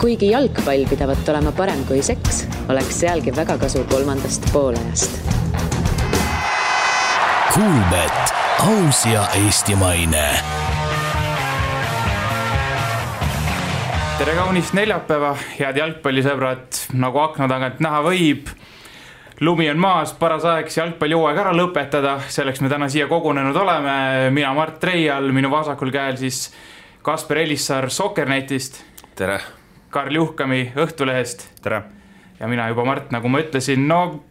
Kuigi jalgpall pidavat olema parem kui seks, oleks sealgi väga kasu kolmandast poolajast. Kuulbet, aus ja eestimaine. Tere kaunist neljapäeva, head jalgpallisõbrad, nagu akna tagant näha võib. Lumi on maas, paras aeg jalgpallijooaeg ära lõpetada, selleks me täna siia kogunenud oleme. Mina Mart Reial, minu vasakul käel siis Kasper Elissaar Sokkernetist. Tere. Karl Juhkami Õhtulehest. Tere. Ja mina juba Mart, nagu ma ütlesin. No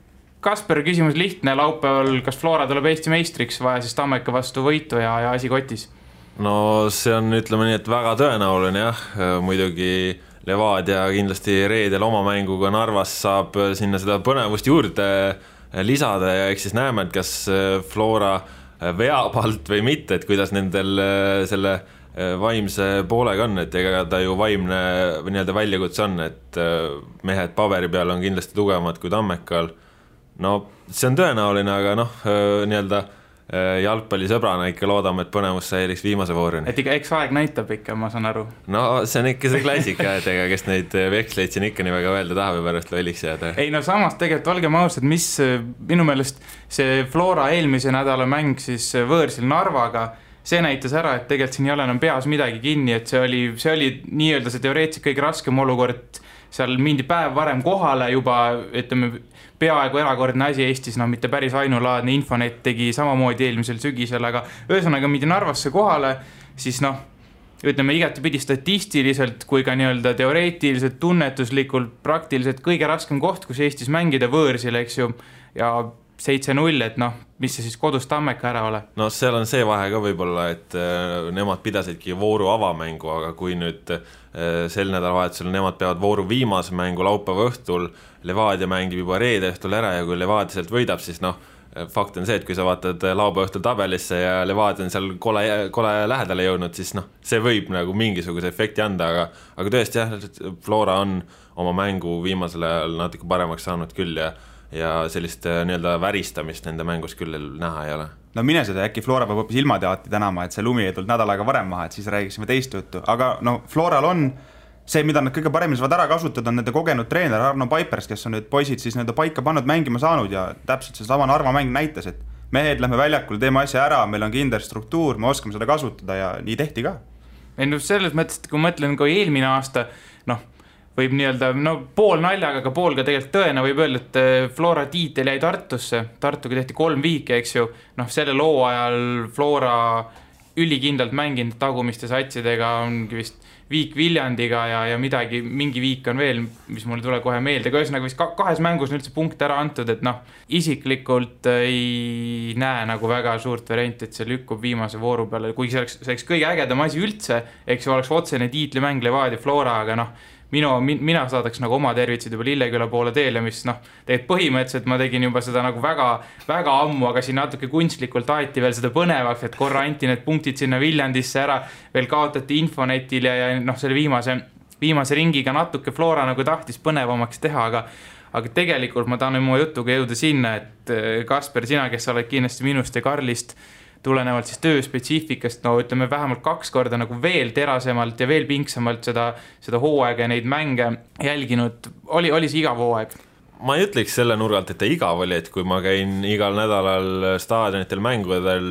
Kasper, küsimus lihtne, laupäeval kas Flora tuleb Eesti meistriks, vaja siis Tammeka vastu võitu ja asi kotis? No see on, ütleme nii, et väga tõenäoline jah, muidugi Levadia kindlasti reedel oma mänguga Narvas saab sinna seda põnevust juurde lisada ja eks siis näeme, et kas Flora veab alt või mitte, et kuidas nendel selle vaimse poolega on, et ega ta ju vaimne nii-öelda väljakutse on, et mehed paberi peal on kindlasti tugevamad kui Tammekal. No see on tõenäoline, aga nii-öelda jalgpallisõbrana ikka loodame, et põnevus säiliks viimase voorini. Et eks aeg näitab ikka, ma saan aru. No see on ikka see klassika, et ega kes neid veksleid siin ikka nii väga öelda tahab ja pärast lolliks jääda. Ei no samas tegelikult olgem ausad, mis minu meelest see Flora eelmise nädala mäng siis võõrsil Narvaga, see näitas ära, et tegelikult siin ei ole enam peas midagi kinni, et see oli nii-öelda see teoreetiliselt kõige raskem olukord, seal mindi päev varem kohale juba, ütleme, peaaegu erakordne asi Eestis, mitte päris ainulaadne. Infonet tegi samamoodi eelmisel sügisel, aga ühesõnaga mindi Narvasse kohale, siis ütleme igatepidi statistiliselt kui ka nii-öelda teoreetiliselt, tunnetuslikult, praktiliselt kõige raskem koht, kus Eestis mängida võõrsil, eks ju, ja 7-0, et mis see siis kodus Tammeka ära ole? No seal on see vahe ka võib-olla, et nemad pidasidki vooru avamängu, aga kui nüüd sel nädalavahetusel nemad peavad vooru viimase mängu laupäeva õhtul, Levadia mängib juba reede õhtul ära ja kui Levadia sealt võidab, siis fakt on see, et kui sa vaatad laupäeva õhtul tabelisse ja Levadia on seal kole lähedale jõudnud, siis see võib mingisuguse efekti anda, aga tõesti jah, Flora on oma mängu viimasel ajal natuke paremaks saanud küll ja sellist nii-öelda väristamist nende mängus küll näha ei ole. No mine seda, äkki Flora peab hoopis ilmateati tänama, et see lumi ei tulnud nädalaga varem maha, et siis räägiksime teist juttu. Aga Floral on see, mida nad kõige paremini saavad ära kasutada, on nende kogenud treener Arno Paipers, kes on nüüd poisid siis nende paika pannud mängima saanud ja täpselt see sama Narva mäng näitas, et mehed lähme väljakul, teeme asja ära, meil on kindel struktuur, me oskame seda kasutada ja nii tehti ka. Selles mõttes, et kui mõtlen kui eelmine aasta, võib nii-öelda, pool naljaga, aga pool ka tegelikult tõena võib öelda, et Flora tiitel jäi Tartusse. Tartuga tehti 3 viike, eks ju. Selle loo ajal Flora ülikindlalt mänginud tagumiste satsidega ongi vist viik Viljandiga ja midagi, mingi viik on veel, mis mulle tule kohe meelde. Aga ühesõnaga vist 2 mängus on üldse punkt ära antud, et isiklikult ei näe väga suurt varianti, et see lükkub viimase vooru peale. Kuigi see oleks kõige ägedam asi üldse, eks ju oleks otsene tiitlimäng Levadia Flora, aga mina saadaks oma tervitsid juba Lilleküla poole teele, mis tegelikult põhimõtteliselt ma tegin juba seda väga, väga ammu, aga siin natuke kunstlikult aeti veel seda põnevaks, et korra anti need punktid sinna Viljandisse ära, veel kaotati Infonetil ja selle viimase ringiga natuke Flora tahtis põnevamaks teha, aga tegelikult ma tahan oma jutuga jõuda sinna, et Kasper, sina, kes sa oled kindlasti minust ja Karlist tulenevalt siis töö spetsiifikast, ütleme vähemalt 2 korda veel terasemalt ja veel pingsamalt seda hooaega ja neid mänge jälginud. Oli see igav hooaeg? Ma ei ütleks selle nurgalt, et ta igav oli, et kui ma käin igal nädalal staadionitel mängudel,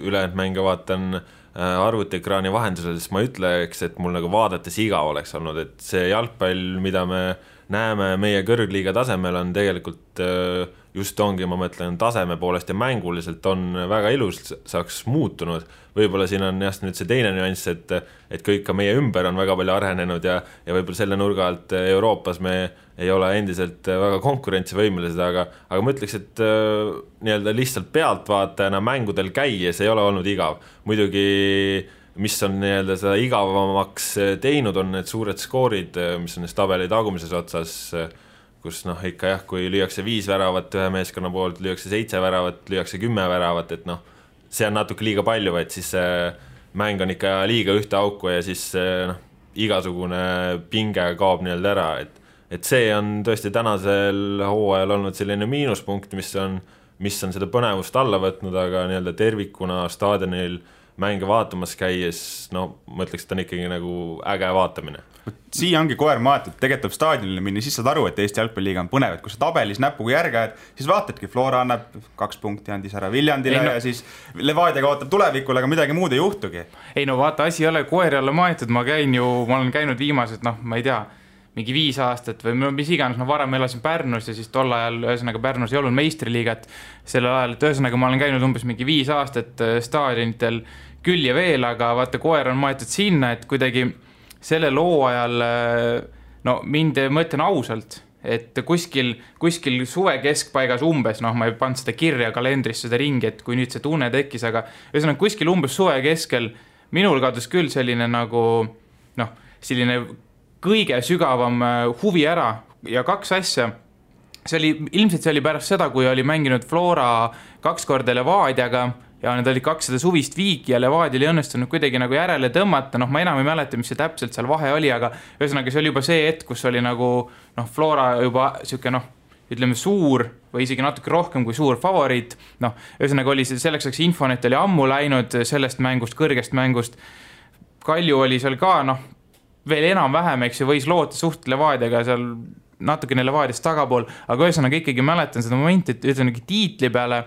ülejäänud mänge vaatan arvutiekraani vahendusel, siis ma ütleks, et mul vaadates igav oleks olnud, et see jalgpall, mida me näeme meie kõrgliiga tasemel, on tegelikult just ongi, ma mõtlen, taseme poolest ja mänguliselt on väga ilus saaks muutunud. Võib-olla siin on just nüüd see teine nüanss, et kõik ka meie ümber on väga palju arenenud ja võib-olla selle nurga alt Euroopas me ei ole endiselt väga konkurentsivõimelised, aga ma ütleks, et nii-öelda lihtsalt pealtvaatajana mängudel käies ei ole olnud igav. Muidugi mis on nii-öelda seda igavamaks teinud, on need suured skoorid, mis on tabeli tagumises otsas, kus ikka jah, kui lüüakse 5 väravat ühe meeskonna poolt, lüüakse 7 väravat, lüüakse 10 väravat, et see on natuke liiga palju, et siis mäng on ikka liiga ühte auku ja siis igasugune pinge kaob nii-öelda ära, et see on tõesti tänasel hooajal olnud selline miinuspunkt, mis on seda põnevust alla võtnud, aga nii-öelda tervikuna staadionil mänge vaatamas käies, ma ütleks, et on ikkagi äge vaatamine. siia ongi koer maetud, tegelikult staadionile minna, siis saad aru, et Eesti jalgpalliliiga on põnev, et kui sa tabelis näpuga järge ajad, siis vaatadki, Flora annab 2 punkti andis ära Viljandile ja siis Levadia kaotab tulevikul, aga midagi muud ei juhtugi. Ei no vaata, asi ei ole koeri alla maetud, ma olen käinud viimased, ma ei tea, mingi 5 aastat või mis iganes, varem elasin Pärnus ja siis tol ajal ühesõnaga Pärnus ei olnud meistriliigat sellel ajal, et ühesõnaga ma olen käinud umbes mingi 5 aastat staadionitel küll ja veel, aga vaata, koer on maetud sinna, et kuidagi selle loo ajal, mind mõtlen ausalt, et kuskil suve keskpaigas umbes, ma ei pannud seda kirja kalendrisse seda ringi, et kui nüüd see tunne tekkis, aga ühesõnaga kuskil umbes suve keskel minul kadus küll selline nagu, selline kõige sügavam huvi ära ja 2 asja. Ilmselt see oli pärast seda, kui oli mänginud Flora 2 korda Levadiaga ja need olid 200 suvist viiki ja Levadia oli õnnestunud kuidagi nagu järele tõmmata. Ma enam ei mäleta, mis see täpselt seal vahe oli, aga ühesõnaga see oli juba see hetk, kus oli nagu Flora juba siuke ütleme suur või isegi natuke rohkem kui suur favoriit. Ühesõnaga oli selleks Infonet oli ammu läinud sellest mängust, kõrgest mängust. Kalju oli seal ka, veel enam-vähem, eks ju, võis loota suht Levadiaga seal natukene Levadiast tagapool, aga ühesõnaga ikkagi mäletan seda momenti, et ütleme tiitli peale,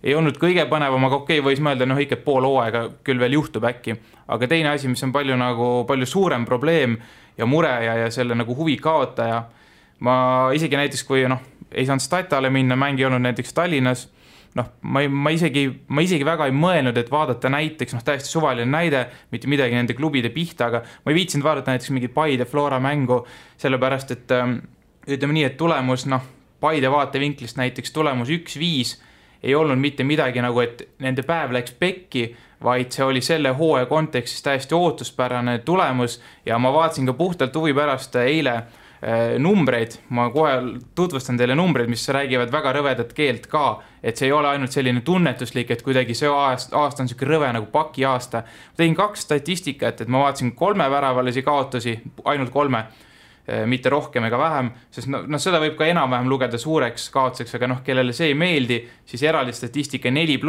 ei olnud kõige põnevam, aga okei, võis mõelda, ikka pool hooaega küll veel juhtub äkki. Aga teine asi, mis on palju suurem probleem ja mure ja selle nagu huvi kaotaja. Ma isegi näiteks, kui ei saanud Statale minna, mängi olnud näiteks Tallinnas, ma isegi väga ei mõelnud, et vaadata näiteks, täiesti suvaline näide, mitte midagi nende klubide pihta, aga ma ei viitsinud vaadata näiteks mingi Paide Flora mängu, sellepärast, et ütleme nii, et tulemus, Paide vaatevinklist näiteks tulemus 1-5 ei olnud mitte midagi nagu, et nende päev läks pekki, vaid see oli selle hooaja kontekstis täiesti ootuspärane tulemus ja ma vaatasin ka puhtalt huvi pärast eile numbreid, ma kohe tutvustan teile numbreid, mis räägivad väga rõvedat keelt ka, et see ei ole ainult selline tunnetuslik, et kuidagi see aasta on selline rõve nagu paki aasta. Ma tegin 2 statistikat, et ma vaatasin 3 väravalisi kaotusi, ainult 3, mitte rohkem ega vähem, sest seda võib ka enam-vähem lugeda suureks kaotuseks, aga kellele see ei meeldi, siis eraldi statistika 4+,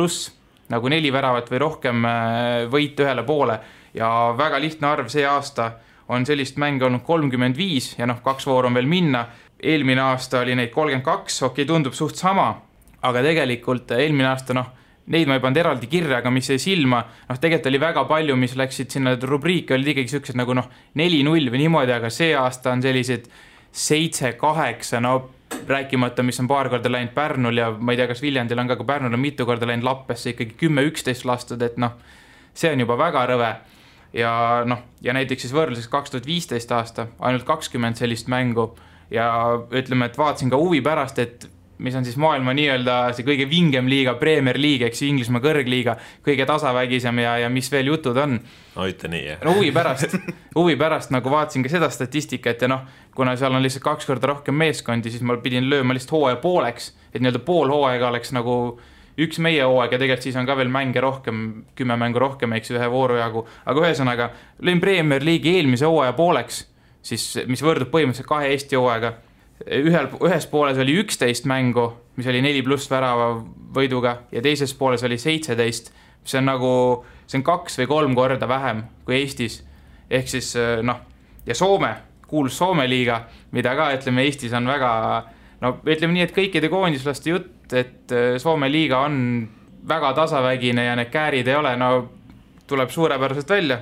nagu 4 väravat või rohkem võit ühele poole ja väga lihtne arv see aasta on sellist mänge olnud 35 ja 2 vooru on veel minna. Eelmine aasta oli neid 32, okei, tundub suht sama, aga tegelikult eelmine aasta, neid ma ei pannud eraldi kirja, aga mis jäi silma, tegelikult oli väga palju, mis läksid sinna rubriiki, olid ikkagi sellised nagu 4-0 või niimoodi, aga see aasta on sellised 7-8, rääkimata, mis on paar korda läinud Pärnul ja ma ei tea, kas Viljandil on ka Pärnul on mitu korda läinud Lappesse ikkagi 10-11 lastud, et see on juba väga rõve. Ja näiteks siis võrdluses 2015 aasta, ainult 20 sellist mängu ja ütleme, et vaatasin ka huvi pärast, et mis on siis maailma nii-öelda see kõige vingem liiga, Premier League, eks Inglismaa kõrgliiga, kõige tasavägisem ja mis veel jutud on. Ütle nii, jah. Huvi pärast nagu vaatasin ka seda statistikat ja kuna seal on lihtsalt 2 korda rohkem meeskondi, siis ma pidin lööma lihtsalt hooaja pooleks, et nii-öelda pool hooaega oleks nagu üks meie hooaeg ja tegelikult siis on ka veel mänge rohkem, 10 mängu rohkem, eks ühe vooru jagu, aga ühesõnaga lõin Premier League'i eelmise hooaja pooleks, siis mis võrdub põhimõtteliselt 2 Eesti hooaega. Ühes pooles oli 11 mängu, mis oli 4+ värava võiduga ja teises pooles oli 17, mis on nagu, see on 2 või 3 korda vähem kui Eestis. Ehk siis ja Soome, kuulus Soome liiga, mida ka ütleme Eestis on väga, ütleme nii, et kõikide koondislaste jutt, et Soome liiga on väga tasavägine ja need käärid ei ole, tuleb suurepäraselt välja.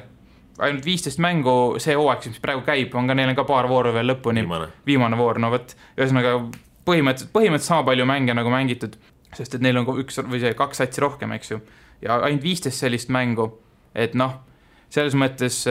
Ainult 15 mängu see hooaeg, mis praegu käib, on ka neil ka paar vooru veel lõpuni. Viimane voor, ühesõnaga põhimõtteliselt sama palju mänge nagu mängitud, sest et neil on 1 või 2 satsi rohkem, eks ju. Ja ainult 15 sellist mängu, et selles mõttes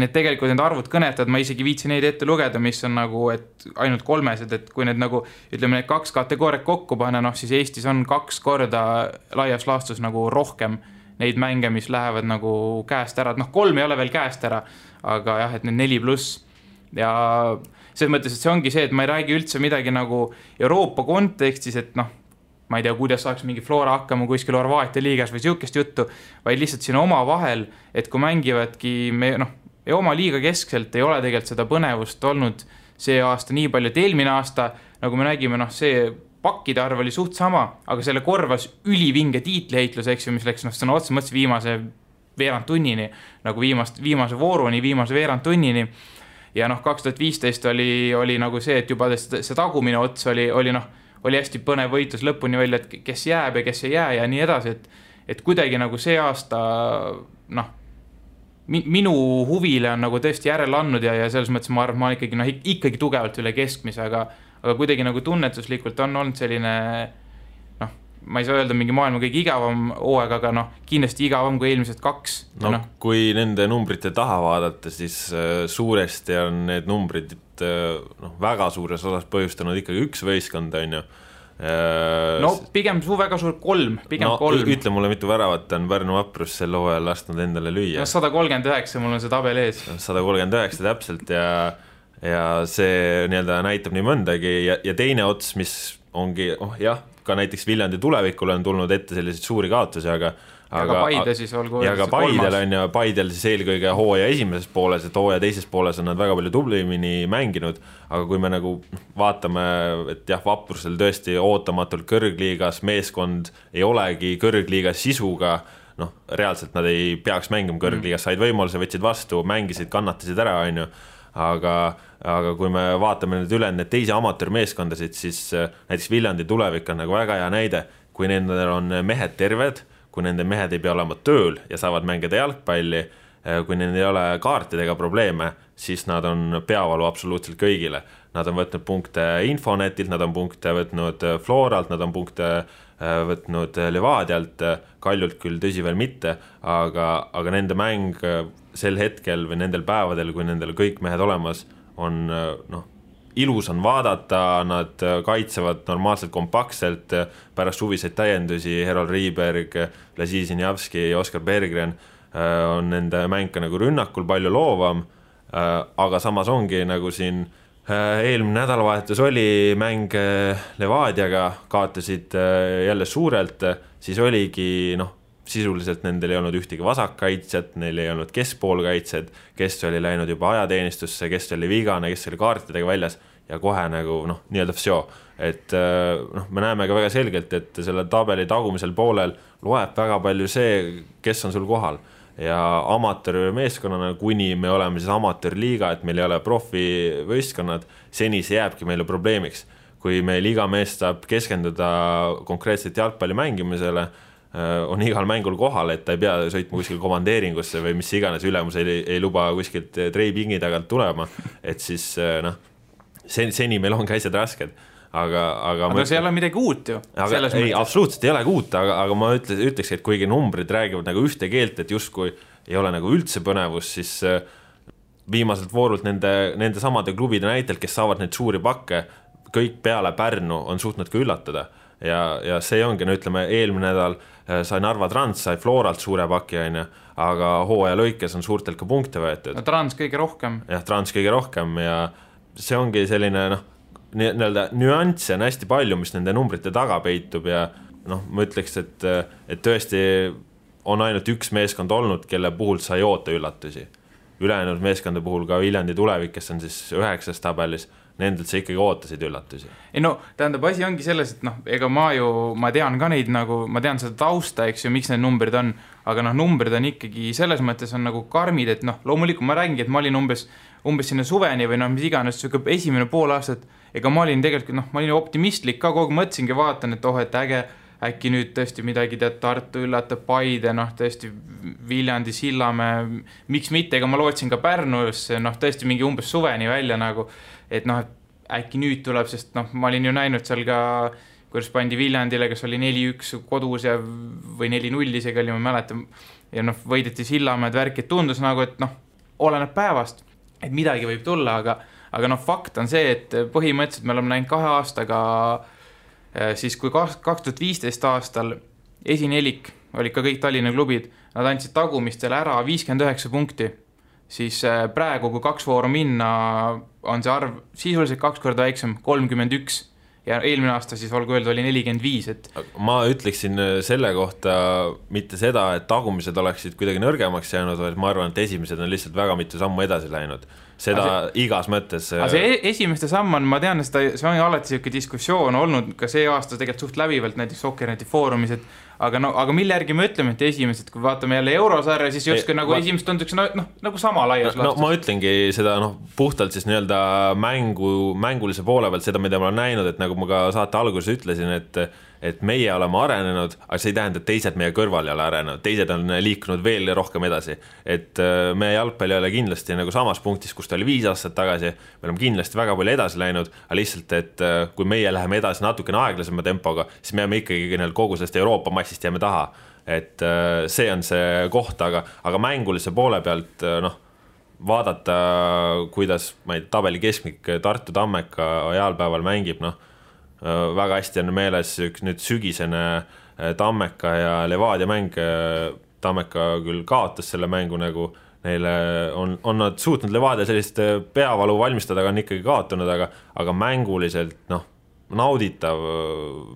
need tegelikult need arvud kõnetavad, ma isegi viitsin neid ette lugeda, mis on nagu, et ainult 3, et kui need nagu, ütleme, need 2 kategooriat kokku panna, siis Eestis on 2 korda laias laastus nagu rohkem neid mänge, mis lähevad nagu käest ära. 3 ei ole veel käest ära, aga jah, et need 4+. Ja selles mõttes, et see ongi see, et ma ei räägi üldse midagi nagu Euroopa kontekstis, et ma ei tea, kuidas saaks mingi Flora hakkama kuskil Horvaatia liigas või siukest juttu, vaid lihtsalt siin oma vahel, et kui mängivadki ja oma liiga keskselt ei ole tegelikult seda põnevust olnud see aasta nii palju, et eelmine aasta, nagu me nägime, see pakkide arv oli suht sama, aga selle korvas ülivinge tiitliheitlus, eks ju, mis läks sõna otsa mõttes viimase veerand tunnini, nagu viimase vooruni, viimase veerand tunnini. ja noh, 2015 oli nagu see, et juba see tagumine ots oli hästi põnev võitlus lõpuni välja, et kes jääb ja kes ei jää ja nii edasi, et kuidagi nagu see aasta noh, minu huvile on nagu tõesti järele andnud ja selles mõttes ma arvan, ma olen ikkagi tugevalt üle keskmise, aga kuidagi nagu tunnetuslikult on olnud selline noh, ma ei saa öelda mingi maailma kõige igavam hooaeg, aga noh, kindlasti igavam kui eelmised 2. No, kui nende numbrite taha vaadata, siis suuresti on need numbrid väga suures osas põhjustanud ikkagi üks võistkond, on ju. No pigem väga suur 3, pigem 3. Ütle mulle, mitu väravat on Pärnu Vaprus sel hooajal lasknud endale lüüa. 139, mul on see tabel ees. 139 täpselt ja see näitab nii mõndagi ja teine ots, mis ongi, jah, ka näiteks Viljandi tulevikule on tulnud ette selliseid suuri kaotusi, aga Paide siis olgu. Ja ka Paidel on ja Paidel siis eelkõige hooaja esimeses pooles, et hooaja teises pooles on nad väga palju tublimini mänginud, aga kui me nagu vaatame, et jah, Vaprusel tõesti ootamatult kõrgliigas meeskond ei olegi kõrgliigas sisuga, noh, reaalselt nad ei peaks mängima kõrgliigas, said võimaluse, võtsid vastu, mängisid, kannatasid ära, on ju, aga kui me vaatame nüüd üle need teisi amatöörmeeskondasid, siis näiteks Viljandi tulevik on nagu väga hea näide, kui nendel on mehed terved, kui nende mehed ei pea olema tööl ja saavad mängida jalgpalli, kui neil ei ole kaartidega probleeme, siis nad on peavalu absoluutselt kõigile. Nad on võtnud punkte Infonetilt, nad on punkte võtnud Floralt, nad on punkte võtnud Levadialt, Kaljult küll tõsi veel mitte, aga nende mäng sel hetkel või nendel päevadel, kui nendel kõik mehed olemas, on ilus on vaadata, nad kaitsevad normaalselt kompaktselt, pärast suviseid täiendusi, Herol Riiberg, Lazi Sinjavski ja Oskar Berggren on nende mäng nagu rünnakul palju loovam, aga samas ongi nagu siin eelmine nädalavahetus oli mäng Levadiaga, kaotasid jälle suurelt, siis oligi sisuliselt nendel ei olnud ühtegi vasakkaitsjat, neil ei olnud keskpoolkaitsjad, kes oli läinud juba ajateenistusse, kes oli vigane, kes oli kaartidega väljas ja kohe nagu nii-öelda vsjo. Et me näeme ka väga selgelt, et selle tabeli tagumisel poolel loeb väga palju see, kes on sul kohal. Ja amatöörmeeskonnana, kuni me oleme siis amatöörliiga, et meil ei ole profivõistkonnad, seni see jääbki meile probleemiks. Kui meil iga mees saab keskenduda konkreetselt jalgpalli mängimisele, on igal mängul kohal, et ta ei pea sõitma kuskil komandeeringusse või mis iganes ülemus ei luba kuskilt treipingi tagant tulema, et siis seni meil on asjad rasked. Aga see ei ole midagi uut ju. Ei, absoluutselt ei ole uut, aga ma ütleks, et kuigi numbrid räägivad nagu ühte keelt, et justkui ei ole nagu üldse põnevus, siis viimaselt voorult nende samade klubide näitel, kes saavad neid suuri pakke, kõik peale Pärnu on suutnud ka üllatada. Ja see ongi, ütleme, eelmine nädal sai Narva Trans, sai Floralt suure paki, aga hooaja lõikes on suurtelt ka punkte võetud. Trans kõige rohkem. Jah, Trans kõige rohkem ja see ongi selline nüansse on hästi palju, mis nende numbrite taga peitub ja ma ütleks, et tõesti on ainult üks meeskond olnud, kelle puhul sai oota üllatusi. Ülejäänud meeskonda puhul ka Viljandi tulevik, kes on siis 9. tabelis, nendelt sa ikkagi ootasid üllatusi. Ei tähendab, asi ongi selles, et ega ma tean ka neid ma tean seda tausta, eks ju, miks need numbrid on, aga numbrid on ikkagi selles mõttes on nagu karmid, et loomulikult ma räägingi, et ma olin umbes sinna suveni või mis iganes, esimene pool aastat, ega ma olin tegelikult, ma olin optimistlik ka, kogu mõtlesingi vaatan, et äge, äkki nüüd tõesti midagi Tartu üllatab, Paide, tõesti Viljandi, Sillamäe, miks mitte, ega ma lootsin ka Pärnusse, tõesti mingi umbes suveni välja et äkki nüüd tuleb, sest ma olin ju näinud seal ka, kuidas pandi Viljandile, kes oli 4-1 kodus ja, või 4-0 isegi oli, ma mäletan, ja võideti Sillamäed värk, et tundus et oleneb päevast, et midagi võib tulla, aga fakt on see, et põhimõtteliselt me oleme näinud 2 aastaga siis kui 2015 aastal esinelik olid ka kõik Tallinna klubid, nad andsid tagumistele ära 59 punkti, siis praegu, kui 2 vooru minna, on see arv sisuliselt 2 korda väiksem, 31 ja eelmine aasta siis olgu öeldud oli 45. Ma ütleksin selle kohta mitte seda, et tagumised oleksid kuidagi nõrgemaks jäänud, vaid ma arvan, et esimesed on lihtsalt väga mitu sammu edasi läinud. Seda igas mõttes. See esimeste samm on, ma tean, see on alati selline diskussioon olnud ka see aasta tegelikult suht läbivalt näiteks Sokkerneti foorumis, et aga mille järgi me ütleme, et esimesed, kui vaatame jälle eurosarja, siis justkui nagu esimesed tunduks nagu sama laias laastus. No ma ütlengi seda puhtalt siis nii-öelda mängulise poole pealt, seda, mida ma olen näinud, et nagu ma ka saate alguses ütlesin, et meie oleme arenenud, aga see ei tähenda, et teised meie kõrval ei ole arenenud, teised on liikunud veel rohkem edasi. Et meie jalgpalli ei ole kindlasti nagu samas punktis, kus ta oli 5 aastat tagasi, me oleme kindlasti väga palju edasi läinud, aga lihtsalt, et kui meie läheme edasi natukene aeglasema tempoga, siis me jääme ikkagi kogu sellest Euroopa massist jääme taha. Et see on see koht, aga mängulise poole pealt vaadata, kuidas tabeli keskmik Tartu Tammeka ajalpäeval mängib, väga hästi on meeles üks nüüd sügisene Tammeka ja Levadia mäng. Tammeka küll kaotas selle mängu, nagu neile on nad suutnud Levadia sellist peavalu valmistada, aga on ikkagi kaotanud, aga mänguliselt nauditav,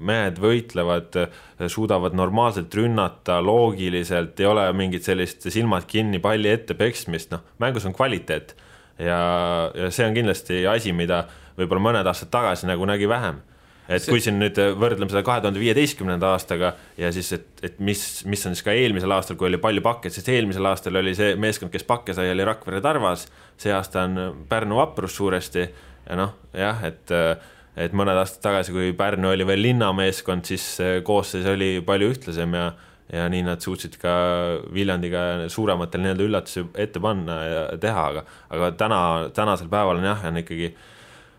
mehed võitlevad, suudavad normaalselt rünnata, loogiliselt, ei ole mingit sellist silmad kinni palli ette peksmist, mängus on kvaliteet ja see on kindlasti asi, mida võib-olla mõned aastad tagasi nagu nägi vähem. Et kui siin nüüd võrdleme seda 2015. aastaga ja siis, et mis on siis ka eelmisel aastal, kui oli palju pakke, sest eelmisel aastal oli see meeskond, kes pakke sai, oli Rakvere Tarvas, see aasta on Pärnu Vaprus suuresti ja et mõned aastad tagasi, kui Pärnu oli veel linnameeskond, siis koosseis oli palju ühtlasem ja nii nad suutsid ka Viljandiga suurematel nii-öelda üllatusi ette panna ja teha, aga tänasel päeval on ikkagi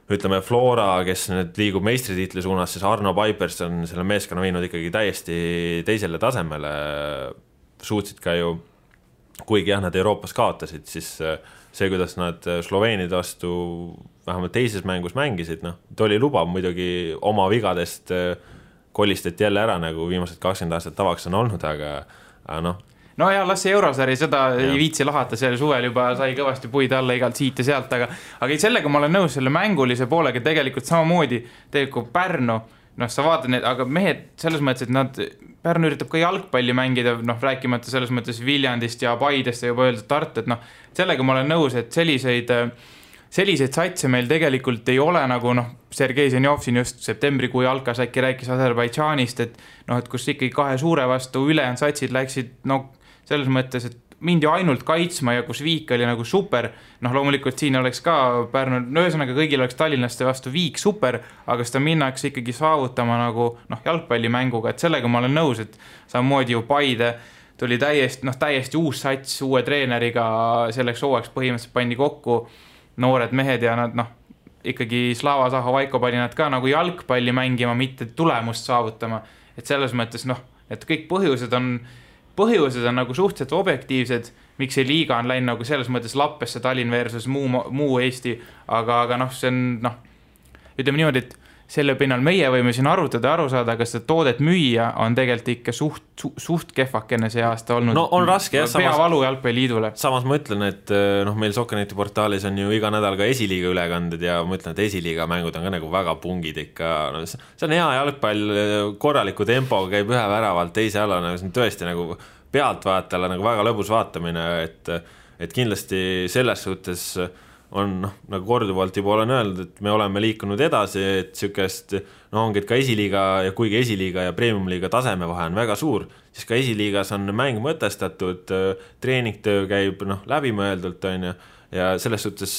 ütleme Flora, kes nüüd liigub meistritiitli suunas, siis Arno Pipers on selle meeskonna viinud ikkagi täiesti teisele tasemele, suutsid ka ju, kuigi nad Euroopas kaotasid, siis see, kuidas nad Sloveenide vastu vähemalt teises mängus mängisid, ta oli lubav muidugi oma vigadest kolistati jälle ära, nagu viimased 20 aastat tavaks on olnud, aga No ja las see eurosari, seda ei viitsi lahata, selle suvel juba sai kõvasti puid alla igalt siit ja sealt, aga sellega ma olen nõus selle mängulise poolega tegelikult samamoodi tegelikult Pärnu, sa vaatad need, aga mehed selles mõttes, et Pärnu üritab ka jalgpalli mängida, rääkimata selles mõttes Viljandist ja Paidest ja juba öeldud Tartu, et sellega ma olen nõus, et selliseid satse meil tegelikult ei ole, nagu Sergei Zenjov siin just septembrikuu jalkas äkki rääkis Aserbaidžaanist, et kus ikkagi 2 suure vastu ülejäänud satsid läksid, selles mõttes, et mindi ainult kaitsma ja kus Viik oli nagu super, loomulikult siin oleks ka Pärnu, ühesõnaga kõigil oleks tallinlaste vastu Viik super, aga seda minnakse ikkagi saavutama nagu jalgpallimänguga, et sellega ma olen nõus, et samamoodi ju Paide tuli täiesti uus sats uue treeneriga, selleks hooajaks põhimõtteliselt pandi kokku noored mehed ja nad ikkagi Slava Zaho Vaiko pani nad ka nagu jalgpalli mängima, mitte tulemust saavutama, et selles mõttes et kõik põhjused on nagu suhteliselt objektiivsed, miks see liiga on läinud nagu selles mõttes lappesse Tallinn versus muu Eesti, aga see on, ütleme niimoodi, et selle pinnal meie võime siin arutada ja aru saada, kas seda toodet müüa on tegelikult ikka suht kehvakene see aasta olnud. On raske, peavalu jalgpalliliidule. Samas ma ütlen, et meil Sokkeneti portaalis on ju iga nädal ka esiliiga ülekanded ja ma ütlen, et esiliiga mängud on ka nagu väga pungid ikka. See on hea jalgpall, korraliku tempoga käib ühe väravalt teise alla, see on tõesti nagu pealtvaatajale nagu väga lõbus vaatamine, et kindlasti selles suhtes on nagu korduvalt juba olen öeldud, et me oleme liikunud edasi, et sükest, ongi, et ka esiliiga ja kuigi esiliiga ja premiumliiga taseme vahe on väga suur, siis ka esiliigas on mäng mõtestatud, treeningtöö käib läbimõeldult ja selles suhtes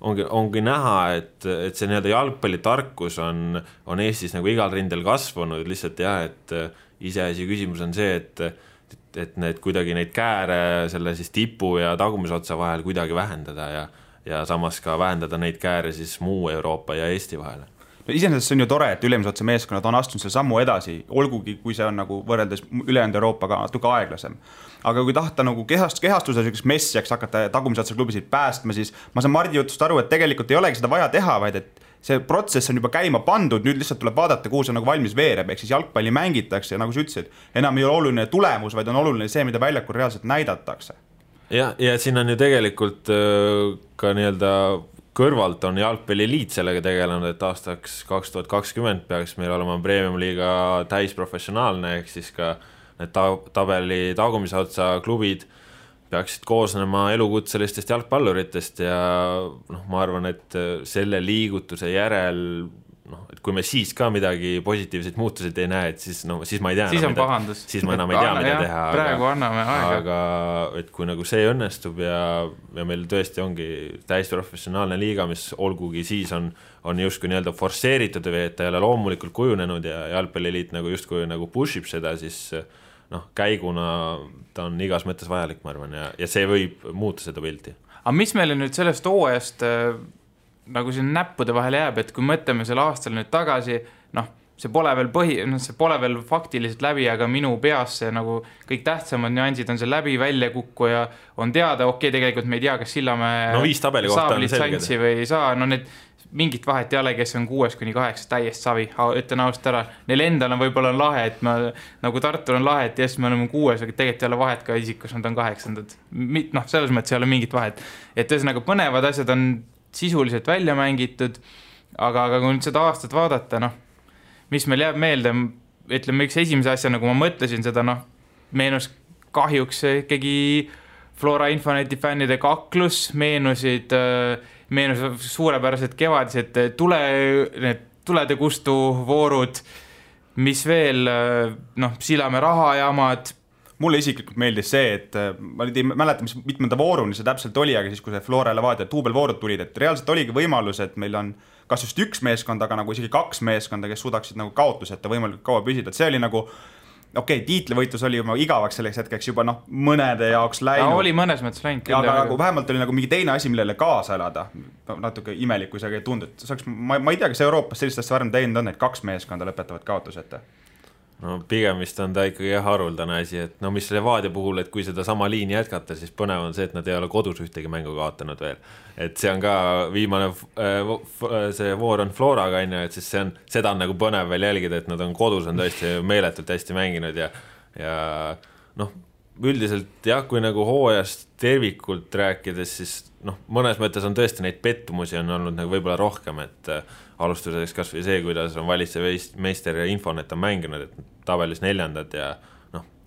ongi näha, et see nii-öelda jalgpallitarkus on Eestis nagu igal rindel kasvanud, lihtsalt et iseasi küsimus on see, et need kuidagi neid kääre selle siis tipu ja tagumisotsa vahel kuidagi vähendada ja samas ka vähendada neid kääre siis muu Euroopa ja Eesti vahele. Iseenesest see on ju tore, et ülemisotsa meeskonnad on astunud selle sammu edasi, olgugi kui see on nagu võrreldes ülejäänud Euroopaga natuke aeglasem. Aga kui tahta nagu kehastuse messiaks hakata tagumisotsa klubisid päästma, siis ma saan Mardi jutust aru, et tegelikult ei olegi seda vaja teha, vaid et see protsess on juba käima pandud, nüüd lihtsalt tuleb vaadata, kuhu see nagu valmis veereb, ehk siis jalgpalli mängitakse ja nagu sa ütlesid, enam ei ole oluline tulemus, vaid on oluline see, mida väljakul reaalselt näidatakse. Ja siin on ju tegelikult ka nii-öelda kõrvalt on jalgpalliliit sellega tegelenud, et aastaks 2020 peaks meil olema premium-liiga täisprofessionaalne, ehk siis ka need tabeli tagumise otsa klubid peaksid koosnema elukutselistest jalgpalluritest ja ma arvan, et selle liigutuse järel et kui me siis ka midagi positiivseid muutuseid ei näe, et siis ma ei tea siis on pahandus. Siis ma enam ei tea, mida teha. Praegu anname aega. Aga et kui nagu see õnnestub ja meil tõesti ongi täiesti professionaalne liiga, mis olgugi siis on justkui nii-öelda forsseeritud või et ta ei ole loomulikult kujunenud ja jalgpalliliit nagu justkui nagu pushib seda, siis käiguna ta on igas mõttes vajalik, ma arvan, ja see võib muuta seda pilti. Aga mis meile nüüd sellest hooajast nagu siin näppude vahele jääb, et kui mõtleme selle aastal nüüd tagasi, see pole veel faktiliselt läbi, aga minu peas see nagu kõik tähtsamad nüansid on see läbi välja kukku ja on teada, tegelikult me ei tea, kas Sillamäe saab litsantsi või ei saa, need mingit vahet ei ole, kes on 6-8 täiest savi, ütlen ausalt ära. Neil endal on võib-olla lahe, et nagu Tartul on lahe, et yes, me oleme 6, aga tegelikult ei ole vahet ka isikus, nad on 8. Selles mõttes ei ole mingit vahet. Et ühesõnaga põnevad asjad on sisuliselt välja mängitud, aga kui nüüd seda aastat vaadata, mis meil jääb meelde, ütleme üks esimese asja, nagu ma mõtlesin seda, meenus kahjuks ikkagi Flora Infoneti fännide kaklus, meenus suurepärased kevadised tulede kustu voorud, mis veel, Sillamäe rahajamad. Mulle isiklikult meeldis see, et ma ei mäleta, mis mitmenda vooruni see täpselt oli, aga siis, kui see Flora Levadia duubelvoorud tulid, et reaalselt oligi võimalus, et meil on kas just üks meeskond, aga nagu isegi 2 meeskonda, kes suudaksid nagu kaotuseta võimalikult kaua püsida, et see oli nagu tiitlivõitlus oli juba igavaks selleks hetkeks juba mõnede jaoks läinud. Oli mõnes mõttes läinud. Aga vähemalt oli nagu mingi teine asi, millele kaasa elada. Natuke imelik, kui see ei tundu. Ma ei tea, kas Euroopas sellist asja varem teinud on, et 2 meeskonda lõpetavad kaotuseta. Pigem vist on ta ikkagi haruldane asi, et mis Levadia puhul, et kui seda sama liini jätkata, siis põnev on see, et nad ei ole kodus ühtegi mängu kaotanud veel. Et see on ka viimane, see voor on Floraga, et siis seda on nagu põnev veel jälgida, et nad on kodus, on tõesti meeletult hästi mänginud ja üldiselt jah, kui nagu hooajast tervikult rääkides, siis mõnes mõttes on tõesti neid pettumusi on olnud nagu võib-olla rohkem, et alustuseks kas või see, kuidas on valitsev meister ja Infonet on mänginud, et tabelis 4. ja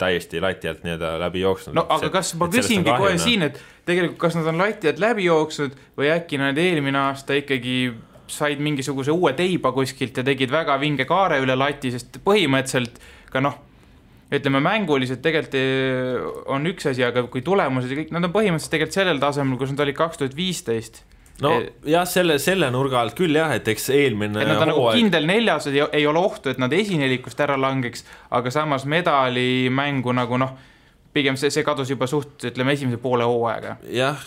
täiesti lati alt nii-öelda läbi jooksnud. Aga kas ma küsingi kohe siin, et tegelikult kas nad on lati alt läbi jooksnud või äkki nad eelmine aasta ikkagi said mingisuguse uue teiba kuskilt ja tegid väga vinge kaare üle lati, sest põhimõtteliselt ka ütleme mänguliselt tegelikult on üks asi, aga kui tulemused ja kõik, nad on põhimõtteliselt tegelikult sellel tasemel, kus nad olid 2015. Jah, selle nurga alt küll jah, et eks eelmine et nad on nagu kindel 4, ei ole ohtu, et nad esinelikust ära langeks, aga samas medali mängu nagu pigem see kadus juba ütleme esimese poole hooaega. Jah.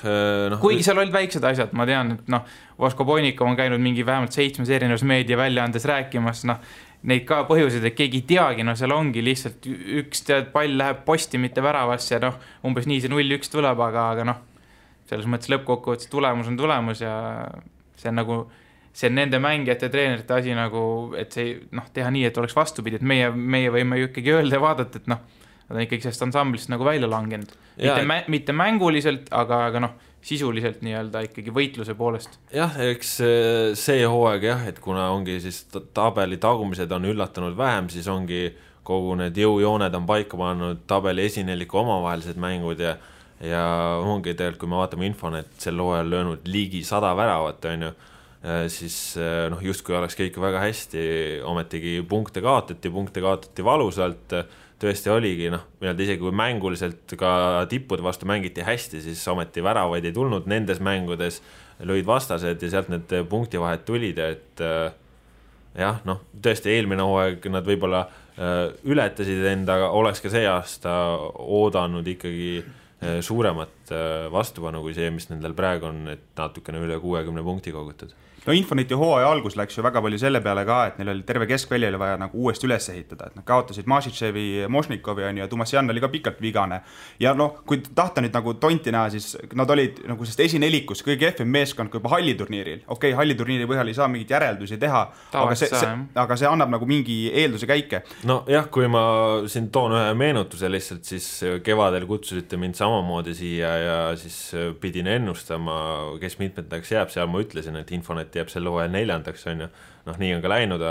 Kuigi seal olid väiksed asjad, ma tean, et Vasko Poinikov on käinud mingi vähemalt 7 erinevas meedia väljaandes rääkimas, neid ka põhjuseid, et keegi ei teagi, seal ongi lihtsalt üks pall läheb posti, mitte väravasse ja umbes nii see 0-1 tuleb, aga selles mõttes lõppkokkuvõttes tulemus on tulemus ja see on nagu see on nende mängijate treenerite asi nagu, et see teha nii, et oleks vastupidi, et meie võime ju ikkagi öelda ja vaadata, et nad on ikkagi sellest ansamblist nagu välja langenud. Mitte mänguliselt, aga sisuliselt nii-öelda ikkagi võitluse poolest. Jah, eks see hooaeg jah, et kuna ongi siis tabeli tagumised on üllatanud vähem, siis ongi kogu need jõujooned on paika pannud tabeli esineliku omavahelised mängud ja ongi tegelikult, kui me vaatame Infonet sel hooajal löönud ligi 100 väravat, siis justkui oleks kõik väga hästi, ometigi punkte kaotati valusalt, tõesti oligi, isegi kui mänguliselt ka tippude vastu mängiti hästi, siis ometi väravaid ei tulnud, nendes mängudes lõid vastased ja sealt need punktivahed tulid, et jah, tõesti eelmine hooaeg nad võib-olla ületasid endaga, oleks ka see aasta oodanud ikkagi suuremat vastupanu kui see, mis nendel praegu on, et natukene üle 60 punkti kogutud. Infoneti hooaja algus läks ju väga palju selle peale ka, et neil oli terve keskvälja vaja nagu uuesti üles ehitada, et nad kaotasid Mašitševi, Mošnikovi ja Tumasjan oli ka pikalt vigane. Ja kui tahta nüüd nagu tonti näha, siis nad olid nagu sest esinelikus kõige kehvem meeskond kui juba halliturniiril. Halliturniiri põhjal ei saa mingit järeldusi teha, aga see annab nagu mingi eelduse käike. Jah, kui ma siin toon ühe meenutuse lihtsalt, siis kevadel kutsusite mind samamoodi siia ja siis pidin ennustama, kes mitmetaks jääb, seal ma ütlesin, et Infonet jääb selle hooajal 4, on ju. Nii on ka läinud,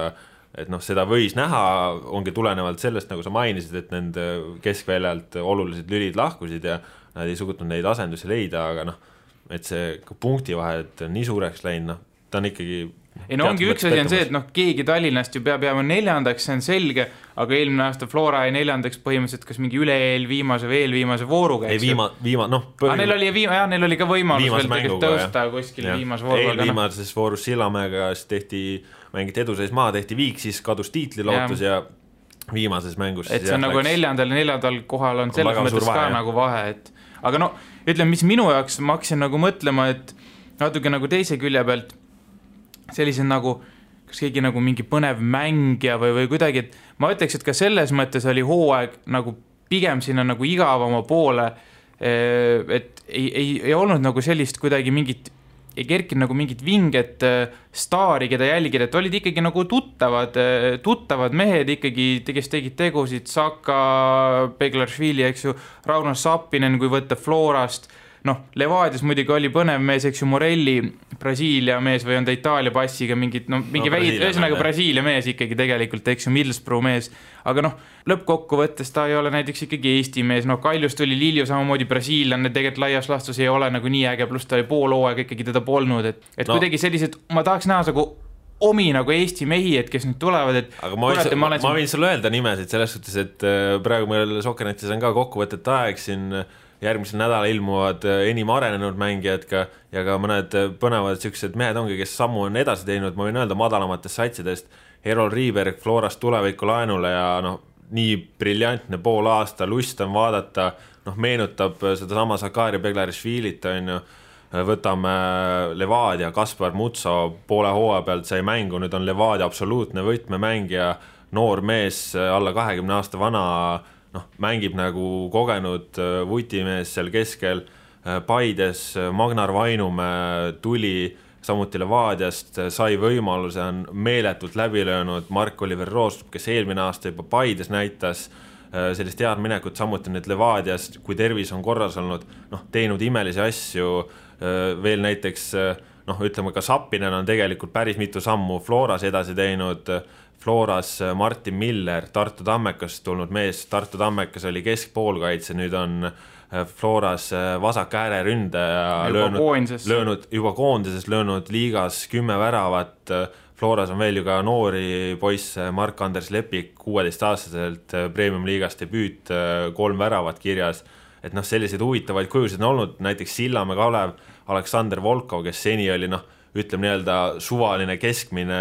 et seda võis näha, ongi tulenevalt sellest, nagu sa mainisid, et nende keskväljalt olulised lülid lahkusid ja nad ei suutnud neid asendusi leida, aga et see punktivahed on nii suureks läinud, ta on ikkagi ei no ongi üks asi on see, et noh, keegi Tallinnast ju peab jääma 4., see on selge, aga eelmine aasta Flora jäi 4. põhimõtteliselt kas mingi üle-eelviimase või eelviimase vooruga. Ei neil oli ka võimalus veel tegelikult tõusta kuskil viimase vooruga. Eelviimases voorus Sillamäega tehti mängit eduseis maha, tehti viik, siis kadus tiitlilootus ja viimases mängus. Et see on nagu 4. kohal on selles mõttes ka nagu vahe, et aga no ütleme, mis minu jaoks ma hakkasin nagu mõtlema, et natuke nagu teise külje pealt sellised nagu, kas keegi nagu mingi põnev mängija või kuidagi, et ma ütleks, et ka selles mõttes oli hooaeg nagu pigem sinna nagu igavama poole, et ei olnud nagu sellist kuidagi mingit, ei kerkinud nagu mingit vinget staari, keda jälgida, et olid ikkagi nagu tuttavad mehed ikkagi, kes tegid tegusid, Saka, Beglaršvili, eks ju, Rauno Sappinen, kui võtta Florast, noh, Levadias muidugi oli põnev mees, eks ju, Morelli, Brasiilia mees või on ta Itaalia passiga mingi ühesõnaga Brasiilia mees ikkagi tegelikult, eks ju, Middlesbrough mees, aga noh, lõppkokkuvõttes ta ei ole näiteks ikkagi Eesti mees, noh, Kaljus tuli Lilju samamoodi brasiillane, tegelikult laias laastus ei ole nagu nii äge, pluss ta oli pool hooaega ikkagi teda polnud, et kuidagi sellised, ma tahaks näha nagu omi nagu Eesti mehi, et kes nüüd tulevad, et aga ma võin sulle öelda nimesid selles suhtes, et praegu meil Sokkernetis on ka kokkuvõtet aeg siin järgmisel nädal ilmuvad enim arenenud mängijad ja ka mõned põnevad siuksed mehed ongi, kes sammu on edasi teinud, ma võin öelda madalamatest satsidest, Erol Riiberg Florast tuleviku laenule ja noh, nii briljantne pool aasta, lust on vaadata, noh, meenutab seda sama Sakari Beglaršvilit, on ju, võtame Levadia, Kaspar Mutso poole hooaja pealt sai mängu, nüüd on Levadia absoluutne võtmemängija, noor mees, alla 20 aasta vana, noh, mängib nagu kogenud vutimees seal keskel, Paides Magnar Vainumäe tuli samuti Levadiast, sai võimaluse, on meeletult läbi löönud Mark-Oliver Roostrup, kes eelmine aasta juba Paides näitas sellist head minekut, samuti nüüd Levadiast, kui tervis on korras olnud, noh, teinud imelisi asju, veel näiteks, noh, ütleme ka Sappinen on tegelikult päris mitu sammu Floras edasi teinud, Floras Martin Miller, Tartu Tammekast tulnud mees, Tartu Tammekas oli keskpoolkaitse, nüüd on Floras vasak ääreründaja löönud juba koondises, löönud liigas 10 väravat, Floras on veel ju ka noori poisse, Mark-Anders Lepik 16-aastaselt Premium liigast debüüt, 3 väravat kirjas, et noh, selliseid huvitavaid kujusid on olnud, näiteks Sillamäe Kalev, Aleksander Volkov, kes seni oli noh, ütleme nii-öelda suvaline keskmine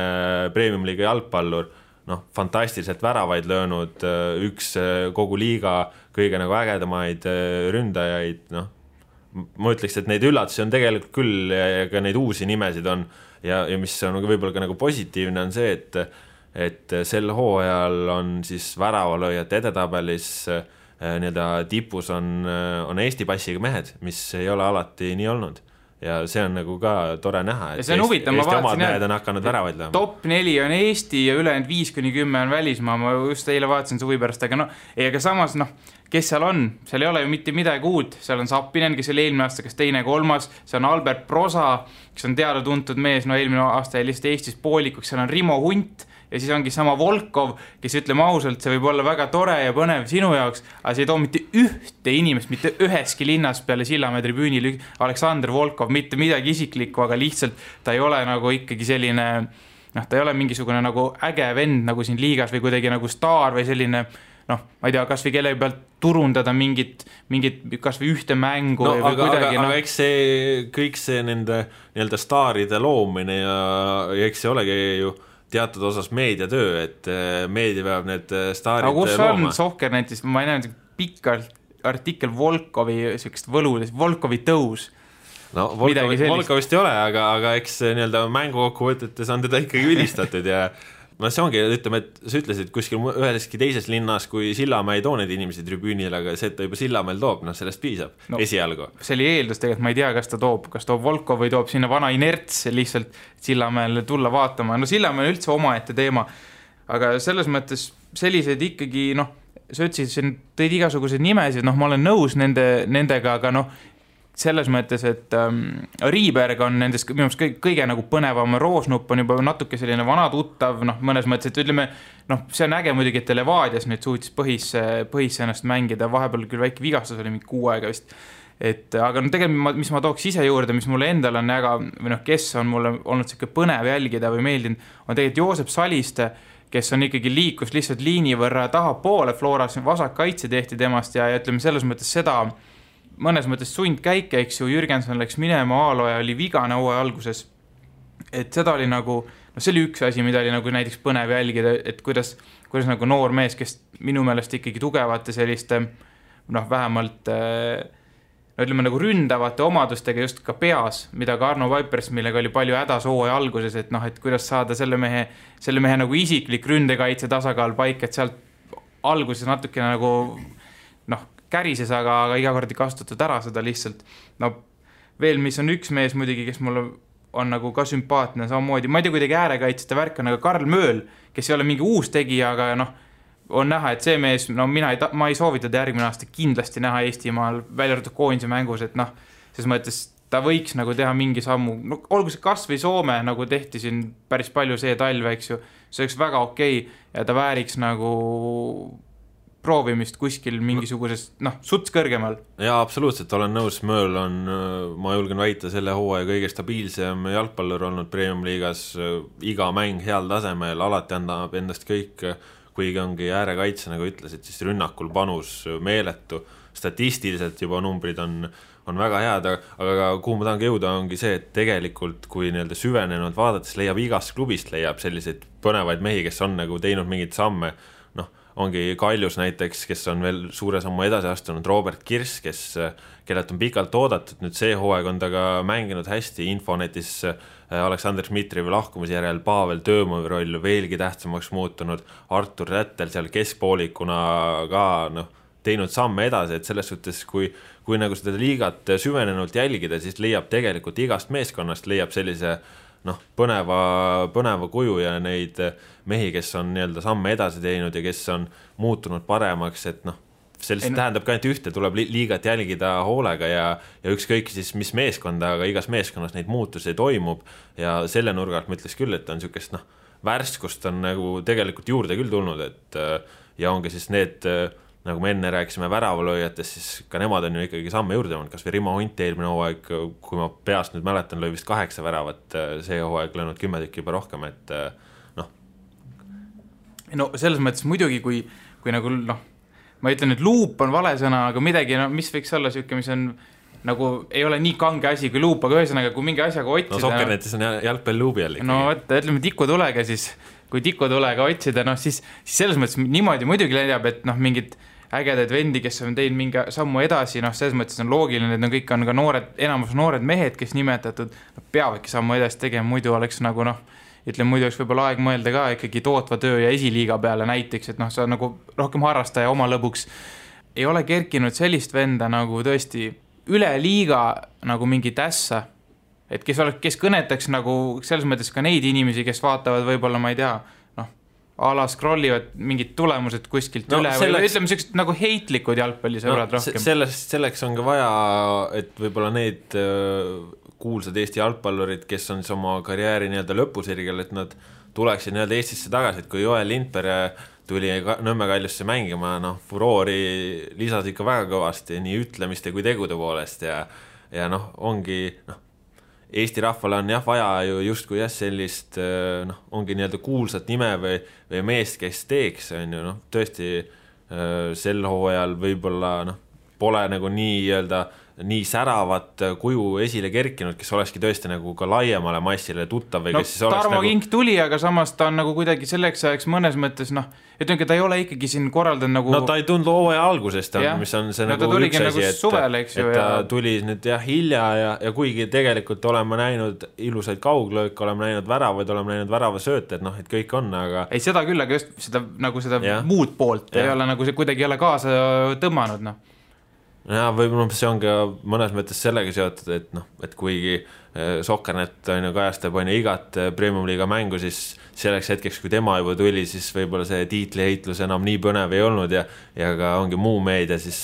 Premium-liiga jalgpallur, noh, fantastiliselt väravaid löönud, üks kogu liiga kõige nagu ägedamaid ründajaid, noh, ma ütleks, et neid üllatusi on tegelikult küll ja ka neid uusi nimesid on ja mis on võib-olla ka nagu positiivne on see, et sel hooajal on siis väravalööjate edetabelis nii-öelda tipus on Eesti passiga mehed, mis ei ole alati nii olnud. Ja see on nagu ka tore näha, et Eesti omad mehed on hakanud väravaid lööma. Top 4 on Eesti ja ülejäänud 5-10 on välismaa, ma just eile vaatasin suvi pärast, aga no, aga samas, noh, kes seal on? Seal ei ole ju mitte midagi uut, seal on Sappinen, kes oli eelmine aasta, kes 2-3, see on Albert Prosa, kes on teada tuntud mees, no eelmine aasta oli lihtsalt Eestis poolikuks, seal on Rimo Hunt ja siis ongi sama Volkov, kes ütleme ausalt, see võib olla väga tore ja põnev sinu jaoks, aga see ei too mitte ühte inimest, mitte üheski linnas peale Sillamäe tribüünil Aleksander Volkov, mitte midagi isiklikku, aga lihtsalt ta ei ole nagu ikkagi selline, noh, ta ei ole mingisugune nagu äge vend nagu siin liigas või kuidagi nagu staar või selline, noh, ma ei tea, kas või kelle pealt turundada mingit kas või ühte mängu no, või kuidagi. Aga eks kõik see nende nii-öelda staaride loomine ja eks see olegi ju teatud osas meediatöö, et meedia peab need staarid looma. Aga kus on Sokkernetis, ma ei näe pikk artikkel Volkovi võludes, Volkovi tõus. No Volkovist ei ole, aga eks nii-öelda mängukokkuvõtetes on teda ikkagi ülistatud ja no see ongi, ütleme, et sa ütlesid kuskil üheski teises linnas, kui Sillamäe ei too neid inimesi tribüünil, aga see, et ta juba Sillamäel toob, noh sellest piisab esialgu. See oli eeldus tegelikult, ma ei tea, kas toob Volkov või toob sinna vana inerts lihtsalt Sillamäel tulla vaatama. No Sillamäel üldse omaette teema, aga selles mõttes sellised ikkagi, noh, sa ütlesid, tõid igasuguseid nimesid, noh, ma olen nõus nendega, aga noh, selles mõttes, et Riiberg on nendest minu arust kõige nagu põnevam, Roosnupp on juba natuke selline vana tuttav, noh, mõnes mõttes, et ütleme, noh, see on äge muidugi, et Levadias nüüd suutis põhisse ennast mängida, vahepeal küll väike vigastus oli mingi 6 aega vist, aga no tegelikult, mis ma tooks ise juurde, mis mulle endal on või kes on mulle olnud siuke põnev jälgida või meeldinud, on tegelikult Joosep Saliste, kes on ikkagi liikus lihtsalt liini võrra tahapoole Floras, vasak kaitse tehti temast ja ütleme selles mõttes seda, mõnes mõttes sundkäike, eks ju, Jürgenson läks minema, Aaloja oli vigane hooaja alguses, et seda oli nagu, see oli üks asi, mida oli nagu näiteks põnev jälgida, et kuidas nagu noor mees, kes minu meelest ikkagi tugevate selliste, vähemalt ütleme nagu ründavate omadustega just ka peas, mida ka Arno Vaipers, millega oli palju hädas hooaja alguses, et et kuidas saada selle mehe nagu isiklik ründekaitse tasakaal paik, et sealt alguses natuke nagu kärises, aga iga kord ei kasutatud ära seda lihtsalt. Veel, mis on üks mees muidugi, kes mulle on nagu ka sümpaatne samamoodi, ma ei tea, kuidagi äärekaitsete värk on, aga Karl Mööl, kes ei ole mingi uus tegija, aga on näha, et see mees, ma ei soovitada järgmine aasta kindlasti näha Eestimaal välja arvatud koondise mängus, et ses mõttes ta võiks nagu teha mingi sammu, olgu see kas või Soome, nagu tehti siin päris palju see talve, eks ju, see oleks väga okei ja ta vääriks nagu proovimist kuskil mingisugusest, suts kõrgemal. Jaa, absoluutselt, olen nõus, Mööl on, ma julgen väita, selle hooaja kõige stabiilsem jalgpallur olnud Premium liigas, iga mäng heal tasemel, alati annab endast kõik, kuigi ongi äärekaitse, nagu ütlesid, siis rünnakul panus meeletu, statistiliselt juba numbrid on väga head, aga kuhu ma tahangi jõuda ongi see, et tegelikult kui nii-öelda süvenenud vaadates leiab igast klubist leiab selliseid põnevaid mehi, kes on nagu teinud mingid samme, ongi Kaljus näiteks, kes on veel suure sammu edasi astunud, Robert Kirss, kellelt on pikalt oodatud, nüüd see hooaeg on ta ka mänginud hästi, Infonetis Aleksandr Dmitrijevi lahkumise järel Pavel Töömovi roll veelgi tähtsamaks muutunud, Artur Rättel seal keskpoolikuna ka teinud samme edasi, et selles suhtes, kui nagu seda liigat süvenenult jälgida, siis leiab tegelikult igast meeskonnast, leiab sellise põneva kuju ja neid mehi, kes on nii-öelda samme edasi teinud ja kes on muutunud paremaks, et sellest tähendab ka ainult ühte, tuleb liigat jälgida hoolega ja ükskõik siis mis meeskonda, aga igas meeskonnas neid muutusi toimub ja selle nurgalt ma ütleks küll, et on niisugust värskust on nagu tegelikult juurde küll tulnud, et ja ongi siis need nagu me enne rääkisime väravalööjatest, siis ka nemad on ju ikkagi samme juurde olnud, kas või Rimo Hunt eelmine hooaeg, kui ma peast nüüd mäletan, lõi vist 8 väravat, see hooaeg löönud 10 tükki juba rohkem, et No selles mõttes muidugi, kui nagu ma ütlen, et luup on vale sõna, aga midagi, mis võiks olla siuke, mis on nagu ei ole nii kange asi kui luup, aga ühesõnaga, kui mingi asjaga otsida... Sokkernetis on jalgpall luubi jälle. Ütleme tikutulega siis, kui tikutulega otsida, siis selles mõttes niimoodi muidugi leiab, et mingid ägedaid vendi, kes on teinud mingi sammu edasi, selles mõttes on loogiline, et kõik on ka enamus noored mehed, kes nimetatud, peavadki sammu edasi tegema, muidu oleks nagu muidu oleks võib-olla aeg mõelda ka ikkagi tootva töö ja esiliiga peale näiteks, et sa nagu rohkem harrastaja oma lõbuks. Ei ole kerkinud sellist venda nagu tõesti üle liiga nagu mingi tässa, et kes kõnetaks nagu selles mõttes ka neid inimesi, kes vaatavad võib-olla, ma ei tea, ala scrollivad mingid tulemused kuskilt üle või ütleme sellised nagu heitlikud jalgpallisõbrad rohkem. Selleks on ka vaja, et võib-olla need kuulsad Eesti jalgpallurid, kes on siis oma karjääri nii-öelda lõpusirgel, et nad tuleksid nii-öelda Eestisse tagasi, et kui Joel Lindberg tuli Nõmme Kaljusse mängima, furoori lisas ikka väga kõvasti nii ütlemiste kui tegude poolest ja ongi Eesti rahvale on vaja ju justkui sellist ongi nii-öelda kuulsat nime või meest, kes teeks, on ju, tõesti sel hooajal võib-olla pole nagu nii säravat kuju esile kerkinud, kes olekski tõesti nagu ka laiemale massile tuttav või kes siis oleks Tarmo Kink tuli, aga samas ta on nagu kuidagi selleks ajaks mõnes mõttes, ütleme, ta ei ole ikkagi siin korraldanud nagu... ta ei tulnud hooaja algusest, mis on see nagu üks asi, et ta tuli nüüd hilja ja kuigi tegelikult oleme näinud ilusaid kauglööke, oleme näinud väravaid, oleme näinud väravasööte, et kõik on, aga... Ei, seda küll, aga just seda muud poolt ei ole nagu see kuidagi ei ole kaasa tõmmanud, Ja, võib-olla see on ka mõnes mõttes sellega seotud, et kuigi Sokkernet kajastab igat Premium-liiga mängu, siis selleks hetkeks, kui tema juba tuli, siis võib-olla see tiitliheitlus enam nii põnev ei olnud ja ka ongi muu meedia, siis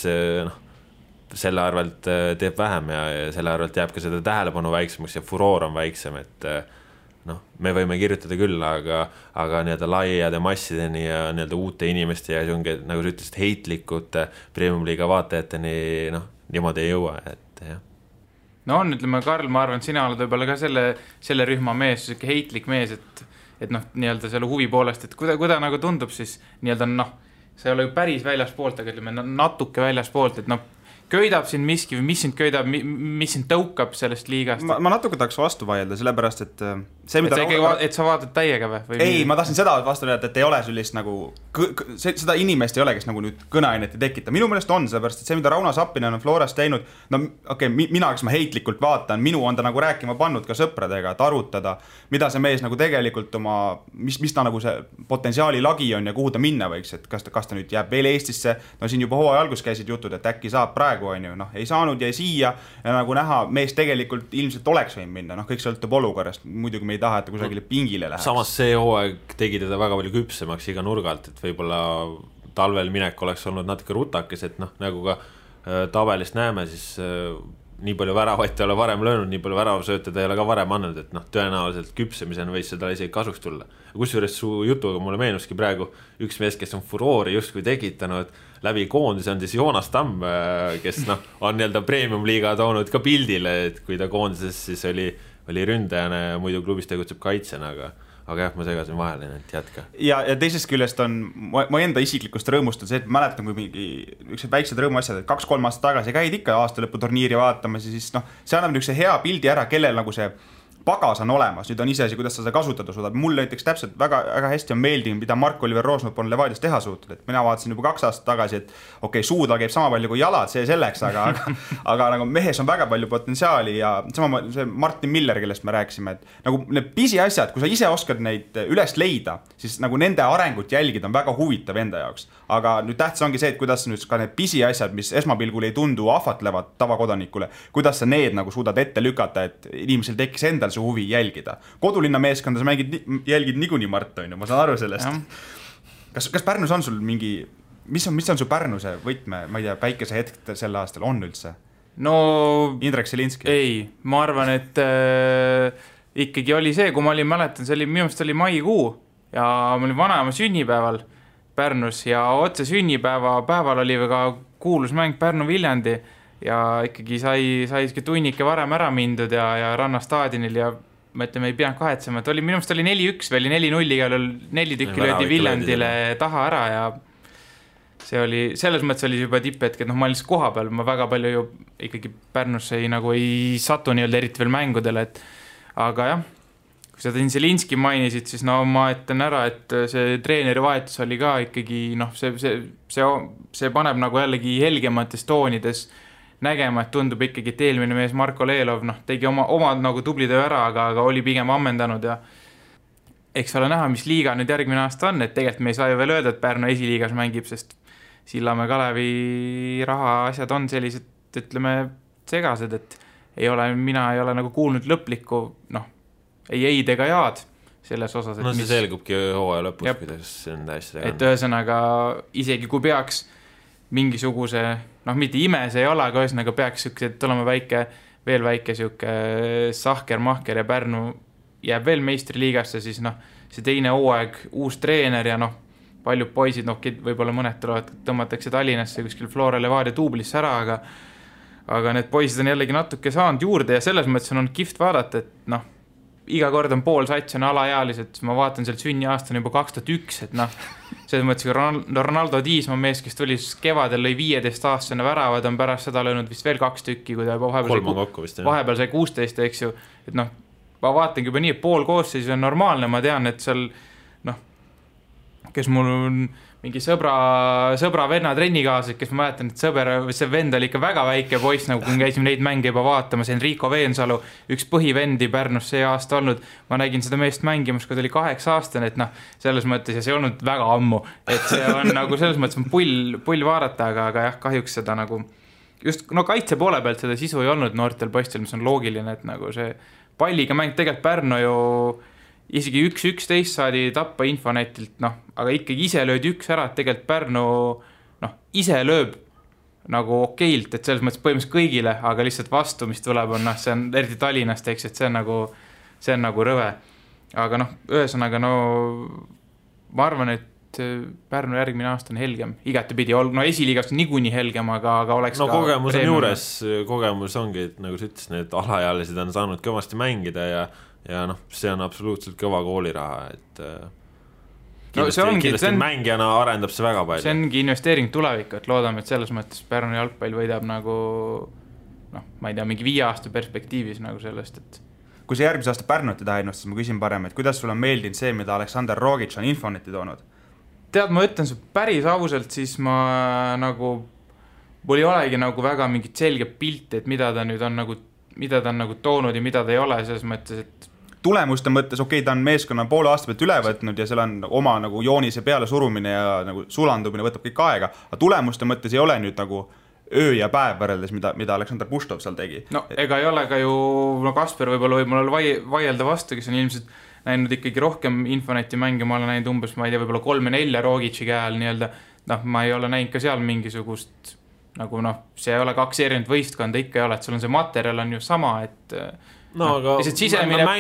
selle arvelt teeb vähem ja selle arvelt jääb ka seda tähelepanu väiksemaks ja furoor on väiksem, et me võime kirjutada küll, aga nii-öelda laiade massideni ja nii-öelda uute inimeste ja nagu sa ütlesid, heitlikute Premium-liiga vaatajateni niimoodi ei jõua, et ette, jah. No on, ütleme, Karl, ma arvan, et sina oled võib-olla ka selle rühma mees, selline heitlik mees, et noh, nii-öelda selle huvi poolest, et kuida nagu tundub siis nii-öelda noh, see ei ole ju päris väljaspoolt, aga ütleme natuke väljaspoolt, et noh, köidab sind miski või mis sind köidab, mis sind tõukab sellest liigast? Ma natuke tahaks vastu vaielda, sellepärast, et see, mida et sa vaatad täiega või? Ei, ma tahtsin seda vastu öelda, et ei ole sellist nagu, seda inimest ei ole, kes nagu nüüd kõneainet ei tekita. Minu meelest on, sellepärast, et see, mida Rauno Sappinen on Floras teinud, no okei, mina, kes ma heitlikult vaatan, minu on ta nagu rääkima pannud ka sõpradega, et arutada, mida see mees nagu tegelikult oma, mis ta nagu see potentsiaali lagi on ja kuhu ta minna võiks, et kas ta nüüd jääb veel Eestisse, no siin juba hooaja algus käisid jutud, et äkki saab praegu, on ju, noh, ei saanud ja siia ja nagu näha, mees tegelikult ilmselt oleks võinud minna, noh, kõik sõltub olukorrast, muidugi me ei taha, et kusagile pingile läheks. Samas see hooaeg tegi teda väga palju küpsemaks iga nurgalt, et võib-olla talvel minek oleks olnud natuke rutakes, et noh, nagu ka tabelist näeme, siis nii palju väravaid ei ole varem löönud, nii palju väravasööte ta ei ole ka varem andnud, et noh, tõenäoliselt küpsemisena võis seda isegi kasuks tulla. Kusjuures su jutuga mulle meenuski praegu üks mees, kes on furoori justkui tekitanud läbi koondise, on siis Joonas Tamm, kes noh, on nii-öelda premium-liiga toonud ka pildile, et kui ta koondises siis oli ründajana ja muidu klubis tegutseb kaitsena, aga jah, ma segasin vahele, et jätka. Ja teisest küljest on, ma enda isiklikust rõõmust on see, et ma mäletan, kui mingi üks väiksed rõõmuasjad, et 2-3 aastat tagasi käid ikka aastalõputurniiri vaatamas ja siis noh, see annab niisuguse hea pildi ära, kellel nagu see pagas on olemas, nüüd on iseasi, kuidas sa seda kasutada suudad. Mul näiteks täpselt väga hästi on meeldinud, mida Mark-Oliver Roosnop on Levadias teha suutnud, et mina vaatasin juba 2 aastat tagasi, et okei, suuda käib sama palju kui jalad, see selleks, aga nagu mehes on väga palju potentsiaali ja sama see Martin Miller, kellest me rääkisime, et nagu need pisiasjad, kui sa ise oskad neid üles leida, siis nagu nende arengut jälgida on väga huvitav enda jaoks. Aga nüüd tähtis ongi see, et kuidas nüüd ka need pisiasjad, mis esmapilgul ei tundu ahvatlevad tavakodanikule, kuidas sa need nagu suudad ette lükata, et inimesel tekkis endal see huvi jälgida. Kodulinna meeskonda sa jälgid niikuinii Mart, on ju, ma saan aru sellest. Kas Pärnus on sul mingi, mis on su Pärnuse võtme, ma ei tea, päikese hetk sel aastal on üldse? No Indrek Selinski? Ei, ma arvan, et ikkagi oli see, kui ma olin, mäletan, see oli, minu meelest oli maikuu ja ma olin vanaema sünnipäeval Pärnus ja otse sünnipäeval oli väga kuulus mäng Pärnu-Viljandi ja ikkagi sai tunnike varem ära mindud ja Rannastaadionil ja ma ütleme, ei pidanud kahetsema, et minu meelest oli 4-1 või 4-0 igal 4 tükki löödi Viljandile taha ära ja see oli, selles mõttes oli juba tipphetk, et noh, ma olin koha peal, ma väga palju ju ikkagi Pärnusse ei satu nii-öelda eriti veel mängudele, et aga jah, kui sa Zelinski mainisid, siis no ma ütlen ära, et see treeneri vahetus oli ka ikkagi, noh, see paneb nagu jällegi helgemates toonides nägema, et tundub ikkagi, et eelmine mees Marko Leelov, noh, tegi oma nagu tubli töö ära, aga oli pigem ammendanud ja eks ole näha, mis liiga nüüd järgmine aasta on, et tegelikult me ei saa ju veel öelda, et Pärnu esiliigas mängib, sest Sillamäe Kalevi raha asjad on sellised, ütleme, segased, et mina ei ole nagu kuulnud lõplikku, noh, ei eid ega jaad selles osas. No see selgubki hooaja lõpus, kuidas see on täiesti. Et ühesõnaga, isegi kui peaks mingisuguse, noh, mitte ime see ei ole, aga ühesõnaga peaks tulema veel väike siuke sahker-mahker ja Pärnu jääb veel meistriliigasse, siis noh, see teine hooaeg, uus treener ja noh, paljud poisid, noh, võib-olla mõned tulevad, tõmmatakse Tallinnasse kuskil Flora Levadia tuublisse ära, aga need poisid on jällegi natuke saanud juurde ja selles mõttes on kihvt vaadata, et noh, iga kord on pool sats on alaealised, ma vaatan sealt sünniaastane juba 2001, et noh, selles mõttes Ronaldo Diismaa mees, kes tuli kevadel lõi 15-aastane väravad, on pärast seda löönud vist veel 2 tükki, kui ta vahepeal sai 16, eks ju, et noh, ma vaatangi juba nii, et pool koosseis on normaalne, ma tean, et seal noh, kes mul on mingi sõbra venna trennikaaslased, kes ma mäletan, et see vend oli ikka väga väike poiss, nagu kui käisime neid mänge juba vaatamas, Enrico Veensalu, üks põhivendi Pärnus see aasta olnud, ma nägin seda meest mängimas, kui ta oli 8-aastane, et noh, selles mõttes, ja see olnud väga ammu, et see on nagu selles mõttes on pull vaadata, aga jah, kahjuks seda nagu, just no kaitse poole pealt seda sisu ei olnud noortel poistel, mis on loogiline, et nagu see palliga mäng, tegelikult Pärnu ju isegi 1-11 saadi tappa Infonetilt, noh, aga ikkagi ise löödi 1 ära, et tegelikult Pärnu, noh, ise lööb nagu okeilt, et selles mõttes põhimõtteliselt kõigile, aga lihtsalt vastu, mis tuleb, on, noh, see on eriti Tallinnast, eks, et see on nagu rõve. Aga noh, ühesõnaga, no ma arvan, et Pärnu järgmine aasta on helgem, igatepidi, no esiliigast on niikuinii helgem, aga oleks no kogemus on juures, kogemus ongi, et nagu sa ütles, need alaealised on saanud kõvasti mängida ja noh, see on absoluutselt kõva kooliraha, et kindlasti mängijana arendab see väga palju. See ongi investeering tulevikku, et loodame, et selles mõttes Pärnu jalgpall võidab nagu ma ei tea, mingi 5 aasta perspektiivis nagu sellest, et kui see järgmise aasta Pärnut ei taha ennast, siis ma küsin parem, et kuidas sul on meeldinud see, mida Aleksandr Rogic on Infoneti toonud? Tead, ma ütlen see päris ausalt, siis ma nagu, mul ei olegi nagu väga mingit selge pilti, et mida ta nüüd on nagu toonud ja mida ta ei ole, selles mõttes, et tulemuste mõttes, okei, ta on meeskonna poole aasta pealt üle võtnud ja seal on oma nagu joonise peale surumine ja nagu sulandumine võtab kõik aega, aga tulemuste mõttes ei ole nüüd nagu öö ja päev võrreldes, mida Aleksandr Puštov seal tegi. No ega ei ole ka ju, Kasper võib-olla võib mul vaielda vastu, kes on ilmselt näinud ikkagi rohkem Infoneti mänge, ma olen näinud umbes, ma ei tea, võib-olla 3-4 Rogici käel nii-öelda, ma ei ole näinud ka seal mingisugust, nagu see ei ole 2 erinevat võistkonda, ikka ei ole, et sul on see materjal on ju sama, et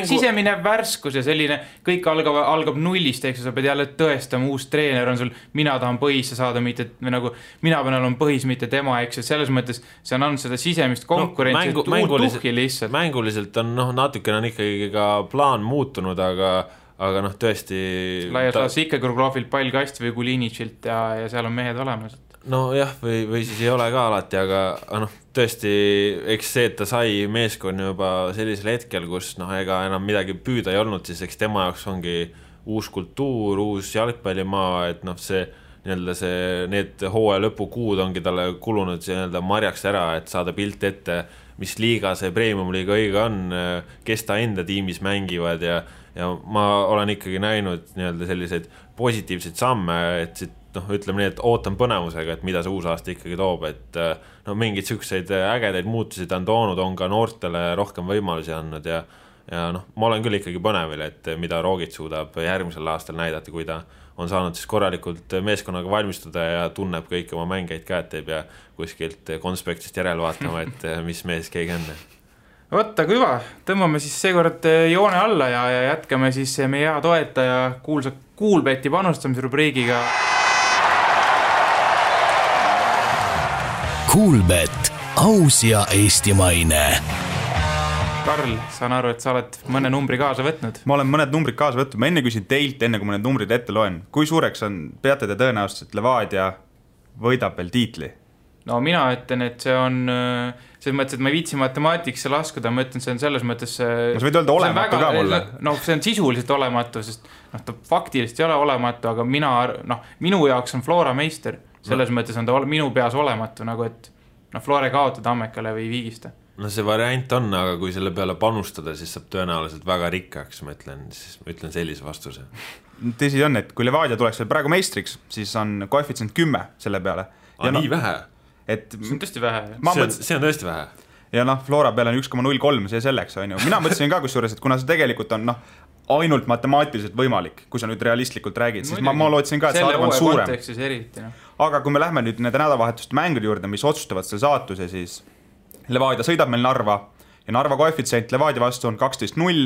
sisemine värskus ja selline, kõik algab nullist, eks sa pead jälle tõestama, uus treener on sul, mina tahan põhisse saada, mitte nagu mina pean olema põhis, mitte tema, eks, et selles mõttes see on andnud seda sisemist konkurentsi, tuhki lihtsalt. Mänguliselt on natukene on ikkagi ka plaan muutunud, aga tõesti laias laas ikka Kruglovilt pall kast või Kulinitšilt ja seal on mehed olemas. No jah, või siis ei ole ka alati, aga tõesti, eks see, et ta sai meeskonna juba sellisel hetkel, kus ega enam midagi püüda ei olnud, siis eks tema jaoks ongi uus kultuur, uus jalgpallimaa, et need hooaja lõpukuud ongi talle kulunud nii-öelda marjaks ära, et saada pilt ette, mis liiga see premium-liiga õige on, kes ta enda tiimis mängivad ja ma olen ikkagi näinud nii-öelda selliseid positiivseid samme, et ütleme nii, et ootan põnevusega, et mida see uus aasta ikkagi toob, et mingid sükseid ägedaid muutusid on toonud, on ka noortele rohkem võimalusi andnud ja ma olen küll ikkagi põnevil, et mida Rogic suudab järgmisel aastal näidata, kui ta on saanud siis korralikult meeskonnaga valmistuda ja tunneb kõiki oma mängeid ka, et ei pea kuskilt konspektist järele vaatama, et mis mees keegi on. Võtta kui hüva, tõmbame siis seekord joone alla ja jätkame siis meie hea toetaja kuulsa Kuulbeti panustamise rubriigiga. Kuulbet, aus ja eestimaine. Karl, saan aru, et sa oled mõne numbri kaasa võtnud. Ma olen mõned numbrid kaasa võtnud. Ma enne küsin teilt, enne kui ma need numbrid ette loen. Kui suureks peate te tõenäoliselt, et Levadia võidab veel tiitli? No mina ütlen, et see on selles mõttes, et ma ei viitsi matemaatikasse laskuda, ma ütlen, see on selles mõttes sa võid öelda olematu ka mulle. See on sisuliselt olematu, sest ta faktiliselt ei ole olematu, aga minu jaoks on Flora meister. Selles mõttes on ta minu peas olematu, nagu et Flore kaotada Ammekale või Viigista. No see variant on, aga kui selle peale panustada, siis saab tõenäoliselt väga rikkaks, ma ütlen sellise vastuse. Tõsi on, et kui Levadia tuleks veel praegu meistriks, siis on koefitsient 10 selle peale. Nii vähe? See on tõesti vähe. See on tõesti vähe. Ja Flora peale on 1,03, see selleks on ju. Mina mõtlesin ka kusjuures, et kuna see tegelikult on ainult matemaatiliselt võimalik, kui sa nüüd realistlikult räägid, siis ma lootsin ka, et see arv on suurem. Aga kui me lähme nüüd nende nädalavahetuste mängude juurde, mis otsustavad selle saatuse, siis Levadia sõidab meil Narva ja Narva koefitsient Levadia vastu on 12-0,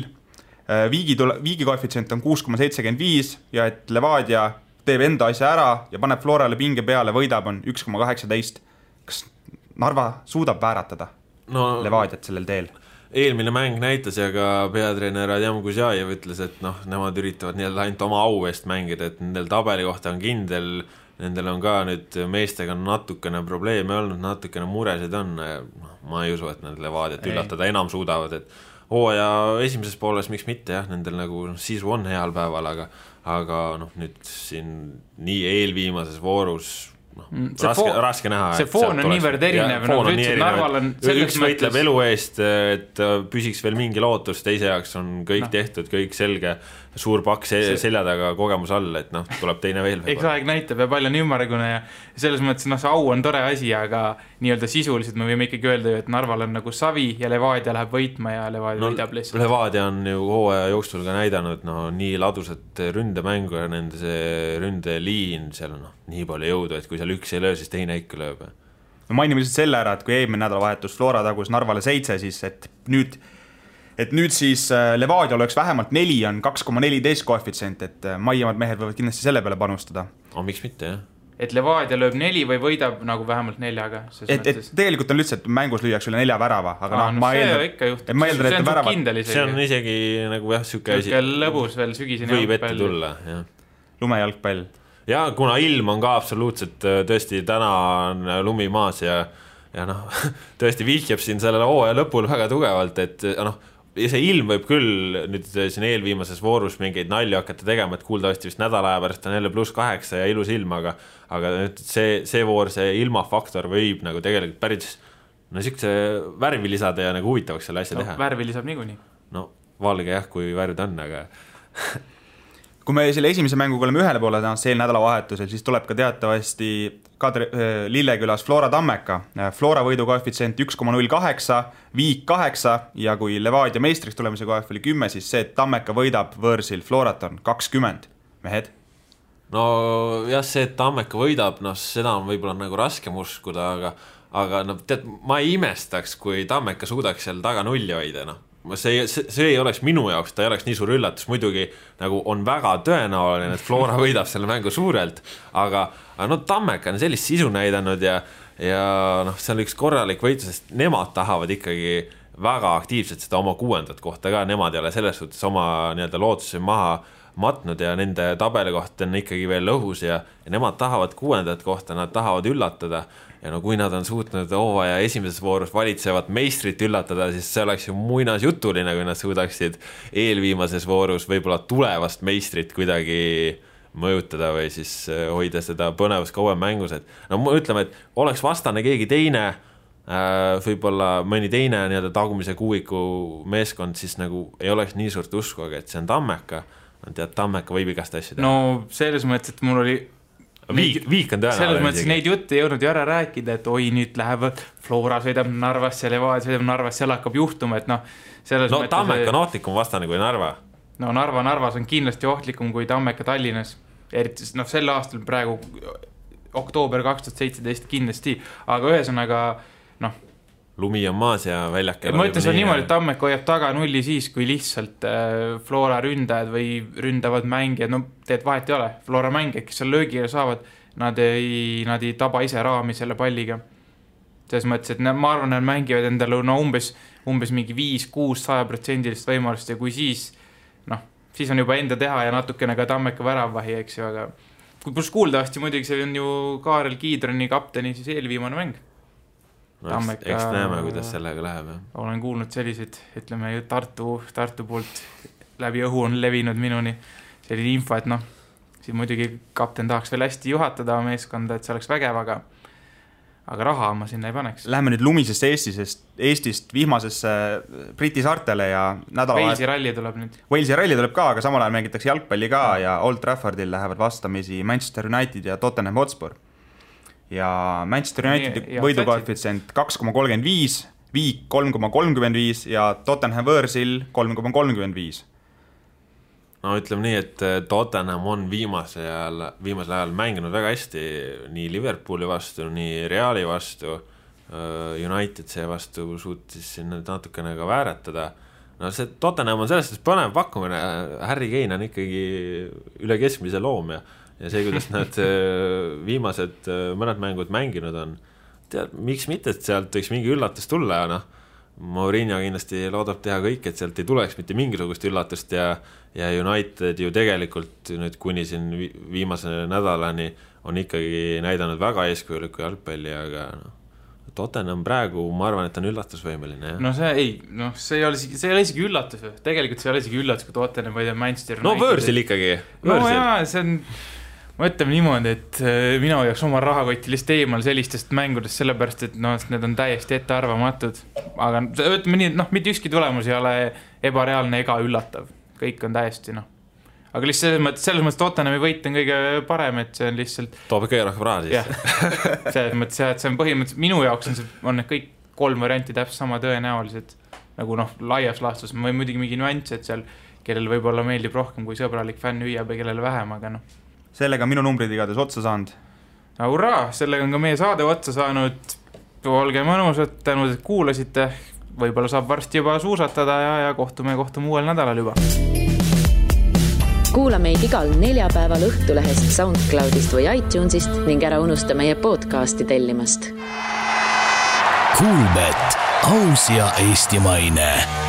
Viigi koefitsient on 6,75 ja et Levadia teeb enda asja ära ja paneb Florale pinge peale, võidab on 1,18. Kas Narva suudab vääratada Levadiat sellel teel? Eelmine mäng näitas ja ka peatreener Adjam Kuzjajev ütles, et nemad üritavad ainult oma au eest mängida, et nendel tabeli kohta on kindel, nendel on ka nüüd meestega natukene probleeme olnud, natukene muresid on, ma ei usu, et need Levadiat üllatada enam suudavad, et hooaja esimeses pooles miks mitte, jah, nendel nagu sisu on heal päeval, aga nüüd siin nii eelviimases voorus raske näha. See foon on niivõrd erinev. Üks võitleb elu eest, et püsiks veel mingi lootus, teise jaoks on kõik tehtud, kõik selge, suur pakk selja taga kogemus all, et tuleb teine veel. Eks aeg näitab ja palju on ümmargune ja selles mõttes see au on tore asi, aga nii-öelda sisuliselt me võime ikkagi öelda, et Narval on nagu savi ja Levadia läheb võitma ja Levadia võidab lihtsalt. Levadia on ju hooaja jooksul ka näidanud nii ladusat ründemängu ja nende see ründeliin, seal on nii palju jõudu, et kui seal üks ei löö, siis teine ikka lööb. Mainime lihtsalt selle ära, et kui eelmine nädalavahetus Flora tagus Narvale 7, siis et nüüd et nüüd siis Levadia oleks vähemalt 4, on 2,14 koefitsient, et maiemad mehed võivad kindlasti selle peale panustada. Miks mitte, jah? Et Levadia lööb 4 või võidab nagu vähemalt 4-ga. Et tegelikult on lihtsalt, mängus lüüaks üle 4 värava, aga ma eeldan, see on isegi nagu jah, süke lõbus veel sügiseni võib ette tulla, jah. Lumejalgpall. Ja kuna ilm on ka absoluutselt tõesti täna on lumi maas ja tõesti vihjab siin sellele hooaja lõpul väga tugevalt, et see ilm võib küll nüüd siin eelviimases voorus mingeid nalja hakata tegema, et kuuldavasti vist nädala aja pärast on jälle +8 ja ilus ilm, aga nüüd see voor, see ilmafaktor võib nagu tegelikult päris niisuguse värvi lisada ja nagu huvitavaks selle asja teha. Värvi lisab niikuinii. Valge jah, kui värvid on, aga kui me selle esimese mänguga oleme ühele poole sel nädalavahetusel, siis tuleb ka teatavasti Lillekülas Flora Tammeka. Flora võidu koefitsient 1,08, Viik 8 ja kui Levadia meistriks tulemise koef oli 10, siis see, et Tammeka võidab võõrsil Florat on 20. Mehed? Jah, see, et Tammeka võidab, seda on võib-olla nagu raskem uskuda, aga tead, ma ei imestaks, kui Tammeka suudaks seal taga nulli hoida, see ei oleks minu jaoks, ta ei oleks nii suur üllatus, muidugi nagu on väga tõenäoline, et Flora võidab selle mängu suurelt, aga Tammeka on sellist sisu näidanud ja see on üks korralik võitlus, sest nemad tahavad ikkagi väga aktiivselt seda oma 6. kohta ka, nemad ei ole selles suhtes oma lootusi maha matnud ja nende tabeli koht on ikkagi veel õhus ja nemad tahavad 6. kohta, nad tahavad üllatada ja kui nad on suutnud hooaja esimeses voorus valitsevat meistrit üllatada, siis see oleks ju muinasjutuline, kui nad suudaksid eelviimases voorus võib-olla tulevast meistrit kuidagi mõjutada või siis hoida seda põnevust kauem mängus, et ütleme, et oleks vastane keegi teine, võib-olla mõni teine tagumise kuuiku meeskond, siis nagu ei oleks nii suurt usku, aga et see on Tammeka, Tammeka võib igast asju teha. Selles mõttes, et mul oli Viik on tõenäoline. Selles mõttes neid jutte ei jõudnud ju ära rääkida, et nüüd lähevad Flora sõidab Narvasse, Levadia sõidab Narvasse, seal hakkab juhtuma, et Tammeka on ohtlikum vastane kui Narva. Narvas on kindlasti ohtlikum kui Tammeka Tallinnas. Eriti sel aastal praegu oktoober 2017 kindlasti, aga ühesõnaga lumi on maas ja väljakkel. Ma ütles on niimoodi, et Tammeka hoiab taga nulli siis, kui lihtsalt Flora ründajad või ründavad mängijad, teed vahet ei ole. Flora mängijad, kes seal löögile saavad, nad ei taba ise raami selle palliga. Selles mõttes, et ma arvan, nad mängivad endale umbes mingi 5-6-100% võimalust ja kui siis on juba enda teha ja natukene ka Tammeka väravvahi, eks ju, aga kus kuuldavasti muidugi see on ju Kaarel Kiidroni kapteni siis eelviimane mäng. Eks näeme, kuidas sellega läheb. Olen kuulnud selliseid, ütleme ju Tartu poolt läbi õhu on levinud minuni selline info, et siin muidugi kapten tahaks veel hästi juhatada meeskonda, et see oleks vägev, aga raha ma sinna ei paneks. Läheme nüüd lumisesse Eestist vihmasesse Briti saartele ja Walesi ralli tuleb nüüd. Walesi ralli tuleb ka, aga samal ajal mängitakse jalgpalli ka ja Old Traffordil lähevad vastamisi Manchester United ja Tottenham Hotspur. Ja Manchester United võidukoefitsient 2,35, Viik 3,35 ja Tottenham võõrsil 3,35. Ütleme nii, et Tottenham on viimasel ajal mänginud väga hästi nii Liverpooli vastu, nii Reali vastu, United see vastu suutis siin natukene ka vääratada. See Tottenham on sellest põnev pakkumine, Harry Kane on ikkagi üle keskmise loom ja see, kuidas nad viimased mõned mängud mänginud on, tead, miks mitte, et sealt võiks mingi üllatus tulla ja Mourinho kindlasti loodab teha kõik, et sealt ei tuleks mitte mingisugust üllatust ja United ju tegelikult nüüd kuni siin viimase nädalani on ikkagi näidanud väga eeskujulikku jalgpalli, aga Tottenham praegu, ma arvan, et on üllatusvõimeline. See ei ole isegi üllatus. Tegelikult see ei ole isegi üllatus, kui Tottenham või Manchester United. Võõrsil ikkagi. See on... Ma ütleme niimoodi, et mina hoiaks oma rahakotti lihtsalt eemal sellistest mängudest, sellepärast, et need on täiesti ettearvamatud. Aga ütleme nii, mitte ükski tulemus ei ole ebareaalne ega üllatav. Kõik on täiesti, Aga lihtsalt selles mõttes Tottenhami võit on kõige parem, et see on lihtsalt... Toob kõige rohkem raha siis. Selles mõttes, et see on põhimõtteliselt, minu jaoks on need kõik 3 varianti täpselt sama tõenäolised. Nagu laias laastus, või muidugi mingi nüanss, et seal, kellel võib-olla meeldib rohkem kui sõbralik fänn hüüab ja kellel vähem, aga Sellega minu numbrid igades otsa saanud. Hurraa, sellega on ka meie saade otsa saanud. Olge mõnusad, tänud, et kuulasite. võib-olla saab varsti juba suusatada ja kohtume uuel nädalal juba. Kuula meid igal neljapäeval Õhtulehest, SoundCloudist või iTunesist ning ära unusta meie podcasti tellimast. Kuulbet, aus ja eestimaine.